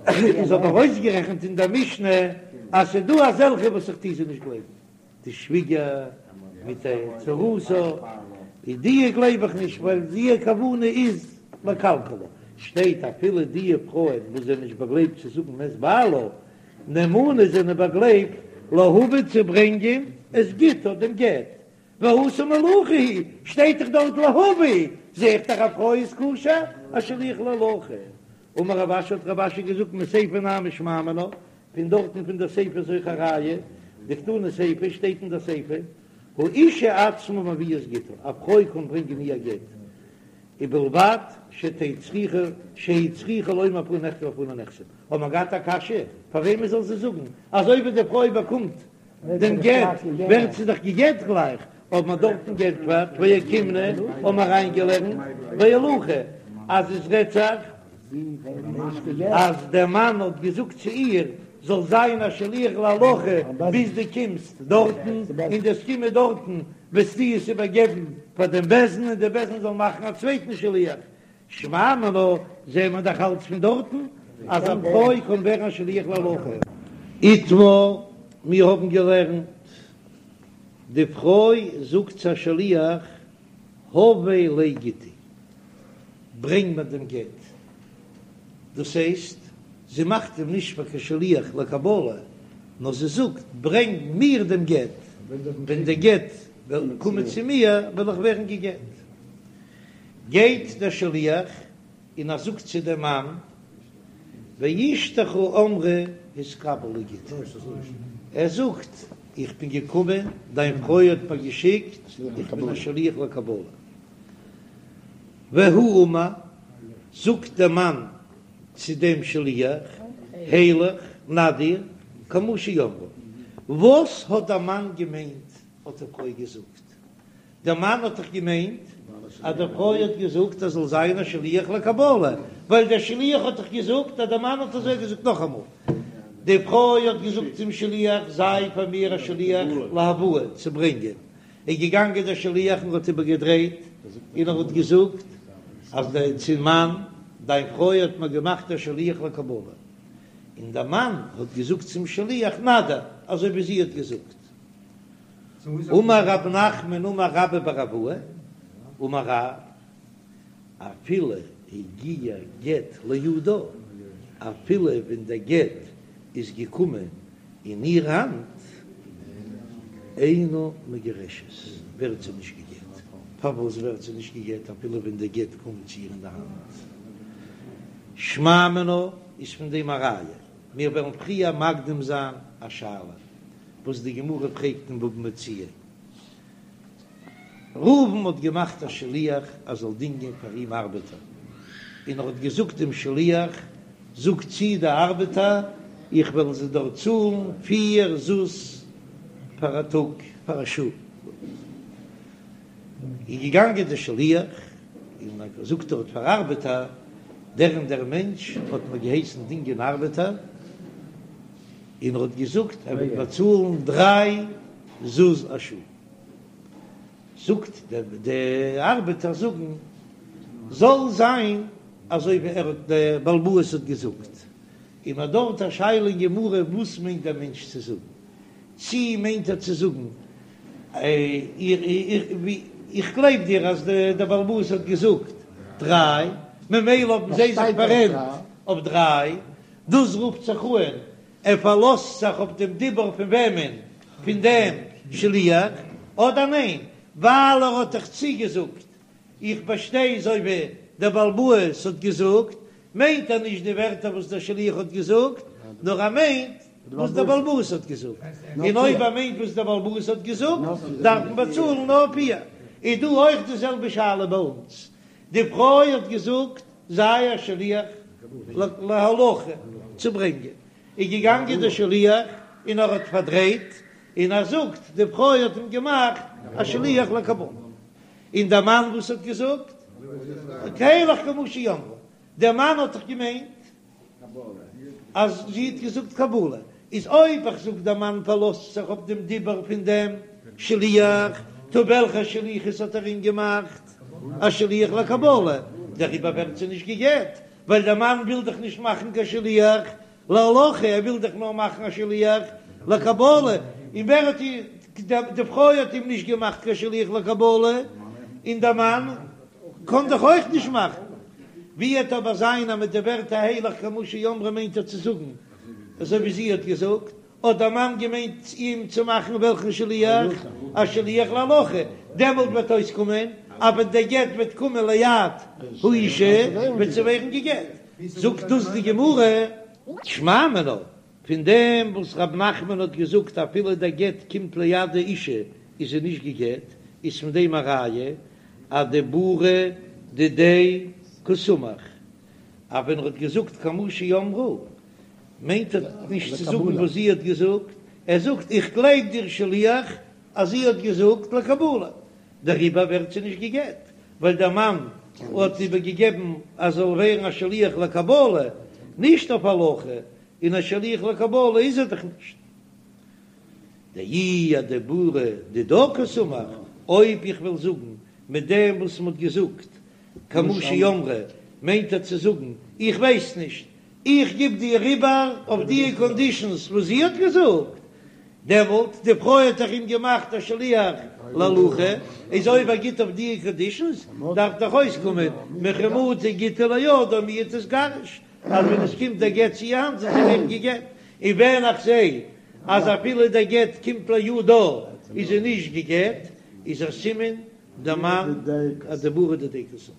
איז אבער אויסגערעכנט אין דער משנה אז ס'איז דא אזעלכע וואס איך טוה זיי נישט גלייבן. די שוויגער מיט די צרתה, איז די גלייב איך נישט ווייל די כוונה איז לקלקלה, שטייט אפילו די פרויען וואס זענען נישט באגלייבט צו זאגן מת בעלה, נאמנות זענען באגלייבט להביא צו ברענגען את גיטה דעם גט, והתם הולכה היא, שטייט דאך דארט להביא, זעה איך דאך א פרוי איז כשר א שליח להולכה. אמר רב אשי האט רב אשי געזאגט מסיפא נמי שמע מינה, פון דארטן פון דער סיפא איז אויך א ראיה, דקתני סיפא שטייט אין דער סיפא, האישה עצמה מביאה את גיטה, א פרוי קען ברענגען איר גט, ובלבד שתהא צריכה שהיא צריכה לומר בפני נכתב ובפני נחתם, האט מען געהאט א קשיא, פאר וועמען זאל זי זאגן, אזוי ווי די פרוי באקומט דעם גט ווערט זי דאך גע'גט גלייך, האט מען דארטן גענטפערט ואוקימנא, האבן מיר אריינגעלערנט בהולכה אז עס רעדט זיך אז דער מאן האט געזאגט צו איר זאל זיין א שליח להולכה ביז דו קומסט דארטן, און דו'סט קומען דארטן וועסטו עס איבערגעבן פאר דעם בית דין און דער בית דין זאל מאכן א צווייטן שליח, שמע מינה, זעהן מיר דאך אלץ פון דארטן אז א פרוי קען ווערן א שליח להולכה. איתמר, מיר האבן געלערנט, די פרוי זאגט צו א שליח, הבא לי גיטי, ברענג מיר דעם גט. דאס הייסט, זי מאכט אים נישט פאר קיין שליח לקבלה, נאר זי זאגט, ברענג מיר דעם גט, ווען דער גט וועט קומען צו מיר, וועל איך ווערן גע'גט. גייט דער שליח און ער זאגט צו דעם מאן, ואשתך אמרה התקבל לי גיטי, ער זאגט, איך בין געקומען, דיין פרוי האט מיר געשיקט, איך בין א שליח לקבלה. והוא אמר, זאגט דער מאן צו דעם שליח, הילך נא דיר, כמו שאמרה. וואס האט דער מאן געמיינט האט די פרוי געזאגט? דער מאן האט דאך געמיינט אז די פרוי האט געזאגט ער זאל זיין א שליח לקבלה, ווייל דער שליח האט דאך געזאגט אז דער מאן האט אזוי געזאגט. נאכאמאל, די פרוי האט געזאגט צום שליח, זיי פאר מיר א שליח להבאה, צו ברענגען. איז געגאנגען דער שליח און האט איבערגעדרייט און ער האט געזאגט אז דער צום מאן, דיין פרוי האט מיר געמאכט א שליח לקבלה. און דער מאן האט געזאגט צום שליח, נא דיר, אזוי ווי זי האט געזאגט. אמר רב נחמן אמר רבה בר אבוה אמר רב, אפילו הגיע גט לידה, אפילו ווען דער גט איז געקומען אין איר האנט, אינה מגורשת, ווערט זי נישט גע'גט. פארוואס ווערט זי נישט גע'גט אפילו ווען דער גט קומט צו איר אין די האנט? שמע מינה איז פון דעם א ראיה. מיר וועלן פריער מקדים זיין א שאלה וואס די גמרא פרעגט אין בבא מציעא. ראובן האט געמאכט א שליח ער זאל דינגען פאר אים ארבעטער, און ער האט געזאגט דעם שליח, זאג צו די ארבעטער, איך וועל זיי דארט צאלן פיר זוז פאר א טאג, פאר א שעה. איז געגאנגען דער שליח און האט געזאגט דארט פאר ארבעטער, דער און דער מענטש האט מיר געהייסן דינגען ארבעטער, און ער האט געזאגט ער וועט באצאלן דריי זוז א שעה. זאגט דער די ארבעטער זאגן זאל זיין אזוי ווי ער האט דער בעל הבית האט געזאגט, און מ'האט דארט א שאלה אין גמרא וואס מיינט דער מענטש צו זאגן, צי מיינט ער צו זאגן איך גלייב דיר אז דער בעל הבית האט געזאגט דריי ממילא האבן זיי זיך פאררענט אויף דריי, דאס רופט זיך אן ער פארלאזט זיך אויף דעם דיבור פון וועמען? פון דעם שליח? אדער ניין, ווייל ער האט דאך צוגעזאגט, איך באשטיי אזוי ווי דער בעל הבית האט געזאגט, מיינט ער נישט די ווערטער וואס דער שליח האט געזאגט, נאר ער מיינט וואס דער בעל הבית האט געזאגט, און אויב ער מיינט וואס דער בעל הבית האט געזאגט, דארף מען באצאלן נאר פיר. איז דא אויך די זעלבע שאלה ביי אונז, די פרוי האט געזאגט זיי א שליח להולכה צו ברענגען, איז געגאנגען דער שליח און ער האט פארדרייט און ער זאגט די פרוי האט אים געמאכט א שליח לקבלה, און דער מאן וואס האט געזאגט הילך כמו שאמרה, דער מאן האט דאך געמיינט אז זי האט געזאגט קבלה, איז אויב איך זאג דער מאן פארלאזט זיך אויף דעם דיבור פון דעם שליח, טא וועלכע שליחות האט ער אים געמאכט? א שליח לקבלה, דעריבער ווערט זי נישט גע'גט, ווייל דער מאן וויל דאך נישט מאכן קיין שליח להולכה, ער וויל דאך נאר מאכן א שליח לקבלה, און ווער האט איר, די פרוי האט אים נישט געמאכט קיין שליח לקבלה, און דער מאן קען דאך אויך נישט מאכן. ווי וועט אבער זיין אז מיט די ווערטער הילך כמו שאמרה מיינט ער צו זאגן אזוי ווי זי האט געזאגט, האט דער מאן געמיינט אים צו מאכן וועלכן שליח? א שליח להולכה, דעמאלט וועט אויסקומען אז ווען דער גט וועט קומען ליד האישה וועט זי ווערן גע'גט, זאגט דאס די גמרא. שמע מינה, פון דעם וואס רב נחמן האט געזאגט אפילו דער גט קומט ליד די אישה איז זי נישט גע'גט, איז פון דעם א ראיה אדיבורא דידיה קסמיך, אז ווען ער האט געזאגט כמו שאמרה מיינט ער נישט צו זאגן וואס זי האט געזאגט, ער זאגט איך גלייב דיר שליח אז זי האט געזאגט לקבלה, דעריבער ווערט זי נישט גע'גט, ווייל דער מאן האט איבערגעגעבן אז זאל ווערן א שליח לקבלה, נישט אויף הולכה, און א שליח לקבלה איז ער דאך נישט. דאי אדיבורא דידה קסמיך, אויב איך וועל זאגן מיט דעם וואס מען האט געזאגט כמו שאמרה, מיינט ער צו זאגן איך ווייס נישט, איך גיב דיר איבער אויף די קאנדישאנס וואס זי האט געזאגט, דעמאלט די פרוי האט דאך אים געמאכט א שליח להולכה, איז אויב ער גיט אויף די קאנדישאנס דארף דאך אויסקומען מכי מטא גיטא לידה מיהא תיגרש, אז ווען עס קומט דער גט צו איר האנט זאל זי ווערן גע'גט, און ווען איך זע אז אפילו דער גט קומט לידה איז זי נישט גע'גט, איז א סימן דער מאן אדיבורא דידיה קסמיך,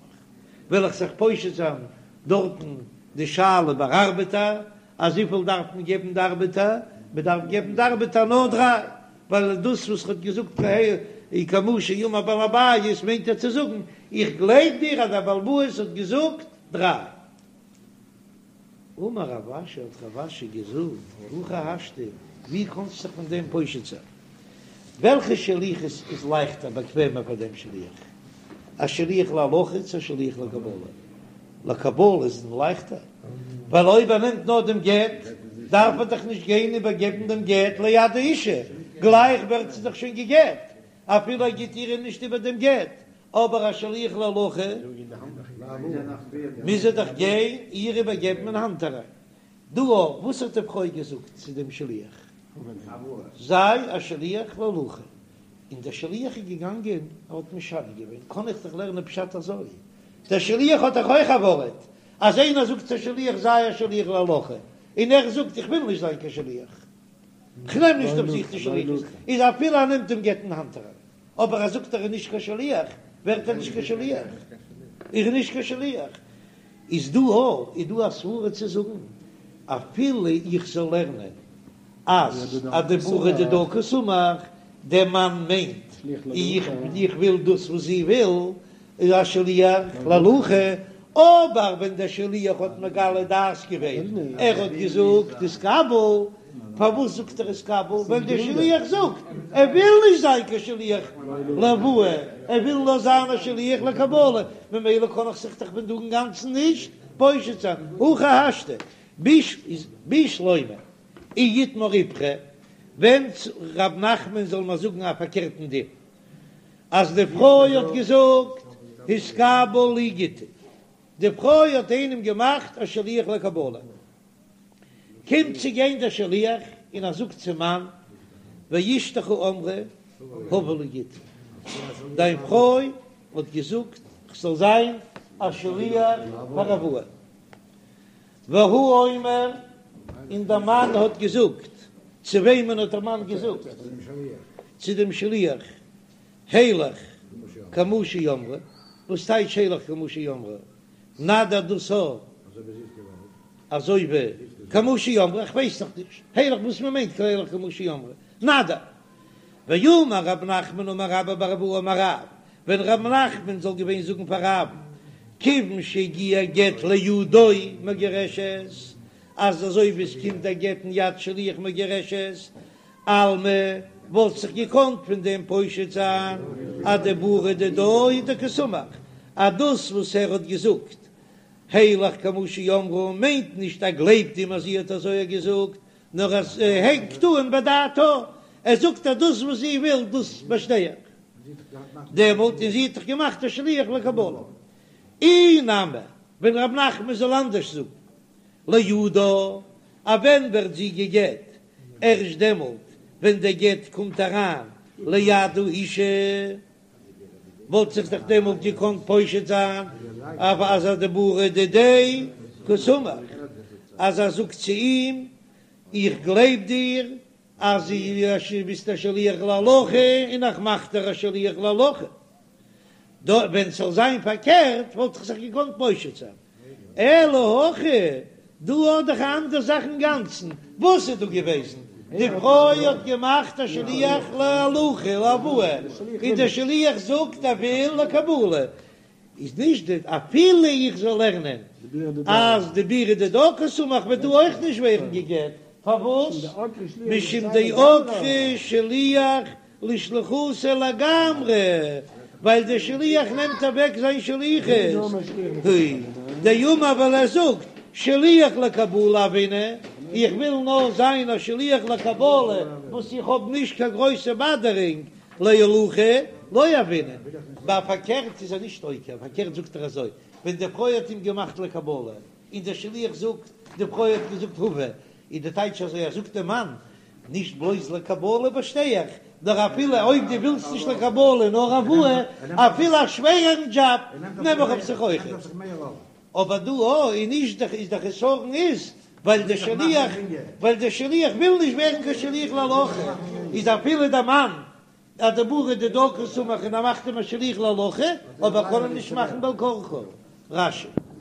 וועל איך זיך פושט זיין דארטן די שאלה ביי ארבעטער, אז וויפיל דארף מען געבן די ארבעטער, מען דארף געבן די ארבעטער נאר דריי, ווייל דאס וואס ער האט געזאגט כמו שאמר בעל הבית מיינט ער צו זאגן איך גלייב דיר אז דער בעל הבית האט געזאגט דריי. אמר רב אשי האט רב אשי געזאגט, הכי השתא, ווי קאנסטו זיך פון דעם פושט זיין? וועלכע שליחות איז לייכטער באקוועמער פאר דעם שליח? א שליח להולכה צו א שליח לקבלה? לקבלה איז אים לייכטער, ווייל אויב ער נעמט נאר דעם גט, דארף ער דאך נישט גיין איבערגעבן דעם גט ליד האישה, גלייך ווערט זי דאך שוין גע'גט, אפילו ער גיט איר נישט איבער דעם גט, אבער א שליח להולכה מוז ער דאך גיין איר איבערגעבן אין האנט אריין. דא אויך, וואס האט די פרוי געזאגט צו דעם שליח? זיי א שליח להולכה. און דער שליח איז געגאנגען, ער האט משנה געווען, קען איך דאך לערנען פשט אזוי, דער שליח האט דאך אויך א ווארט, אז איינער זאגט צו שליח זיי א שליח להולכה, און ער זאגט איך וויל נישט זיין קיין שליח, כ'נעם נישט אויף זיך די שליחות, איז אפילו ער נעמט דעם גט אין האנט אריין, אבער ער זאגט ער איז נישט קיין שליח, ווערט ער נישט קיין שליח, איז ער נישט קיין שליח. איז דא א איז דא א סברה צו זאגן אפילו איך זאל לערנען אז אדיבורא דידה קסמיך, דער מאן מיינט איך איך וויל דאס וואס זי וויל, איז א שליח להולכה, אבער ווען דער שליח האט מגלה דעת געווען, ער האט געזאגט התקבל, פארוואס זאגט ער התקבל? ווייל דער שליח זאגט ער וויל נישט זיין קיין שליח להבאה, ער וויל נאר זיין א שליח לקבלה, ממילא קען איך זיך דאך פון דא אינגאנצן נישט פושט זיין, הכי השתא בשלמא אי איתמר איפכא, ווען ר' נחמן זאל מיר זאגן א פארקערטן דין, אז די פרוי האט געזאגט התקבל לי גיטי, די פרוי האט איינעם געמאכט א שליח לקבלה, קומט צו גיין דער שליח און ער זאגט צום מאן, ואשתך אמרה הבא לי גיטי, דיין פרוי האט געזאגט כ'זאל זיין א שליח פאר הבאה, והוא אומר, און דער מאן האט געזאגט, צו וועמען האט דער מאן געזאגט? צו דעם שליח, הילך כמו שאמרה, וואס טייטש הילך כמו שאמרה? נא דיר דאס א אזוי ווי כמו שאמרה, איך ווייס נאך נישט הילך וואס מען מיינט הילך כמו שאמרה, נא דיר. ואמר רב נחמן אמר רבה בר אבוה אמר רב, ווען רב נחמן זאל געווען זאגן פאר רב, כיוון שהגיע גט לידו מגורשת, אז אזוי ווי עס קומט א גט אין יד שליח מגורשת, אלמא וואלט זיך געקאנט פון דעם פושט זיין אדיבורא דידה הוא דקסמיך, אז דאס וואס ער האט געזאגט הילך כמו שאמרה מיינט נישט ער גלייבט אים אז זי האט אזוי געזאגט, נאר אז ער הענגט אן בדעתה, ער זאגט אז דאס וואס זי וויל דאס באשטיי איך דעמאלט, און זי האט דאך געמאכט א שליח לקבלה. אי נמי, ווען רב נחמן זאל אנדערש זאגן לידה, אז ווען ווערט זי גע'גט? ערשט דעמאלט ווען דער גט קומט אריין ליד האישה, וואלט זיך דאך דעמאלט געקאנט פושט זיין אז אדיבורא דידיה קסמיך, אז ער זאגט צו אים איך גלייב דיר אז דו ביסט א שליח להולכה און איך מאך דיר א שליח להולכה. דא ווען ס'זאל זיין פארקערט וואלט איך זיך געקאנט פושט זיין, אלא הכא, דא האט דאך א אנדער זאך אינגאנצן, וואס איז דא געוועזן? די פרוי האט געמאכט א שליח להולכה להבאה, און דער שליח זאגט ער וויל לקבלה, איז נישט די אפילו איך זאל לערנען אז דיבורא דידה קסמיך וועט דא אויך נישט ווערן גע'גט, פארוואס? משום דעקרה שליח לשליחותיה לגמרי, ווייל דער שליח נעמט אוועק זיין שליחות, דאמר ווייל ער זאגט שליח לקבלה הוינא, איך וויל נאר זיין א שליח לקבלה וואס איך האב נישט קיין גרויסע באדערונג, להולכה לא הוינא, ביי פארקערט איז ער נישט עוקר, פארקערט זאגט ער אזוי, ווען די פרוי האט אים געמאכט לקבלה, און דער שליח זאגט, די פרוי האט געזאגט הבא, איז די טייטש אזוי, ער זאגט דעם מאן, נישט בלויז לקבלה באשטיי איך, נאר אפילו אויב דו ווילסט נישט לקבלה נאר הבאה, אפילו א שווערערן דזשאב נעם איך אויף זיך אויכעט. אבער דא א איז נישט די איז די חסרון איז ווייל די שליח ווייל די שליח וויל נישט ווערן קיין שליח להולכה, איז אפילו די מאן אדיבורא דידה קסמיך און ער מאכט אים א שליח להולכה, אבער קען אים נישט מאכן בעל כרחו. רש"י.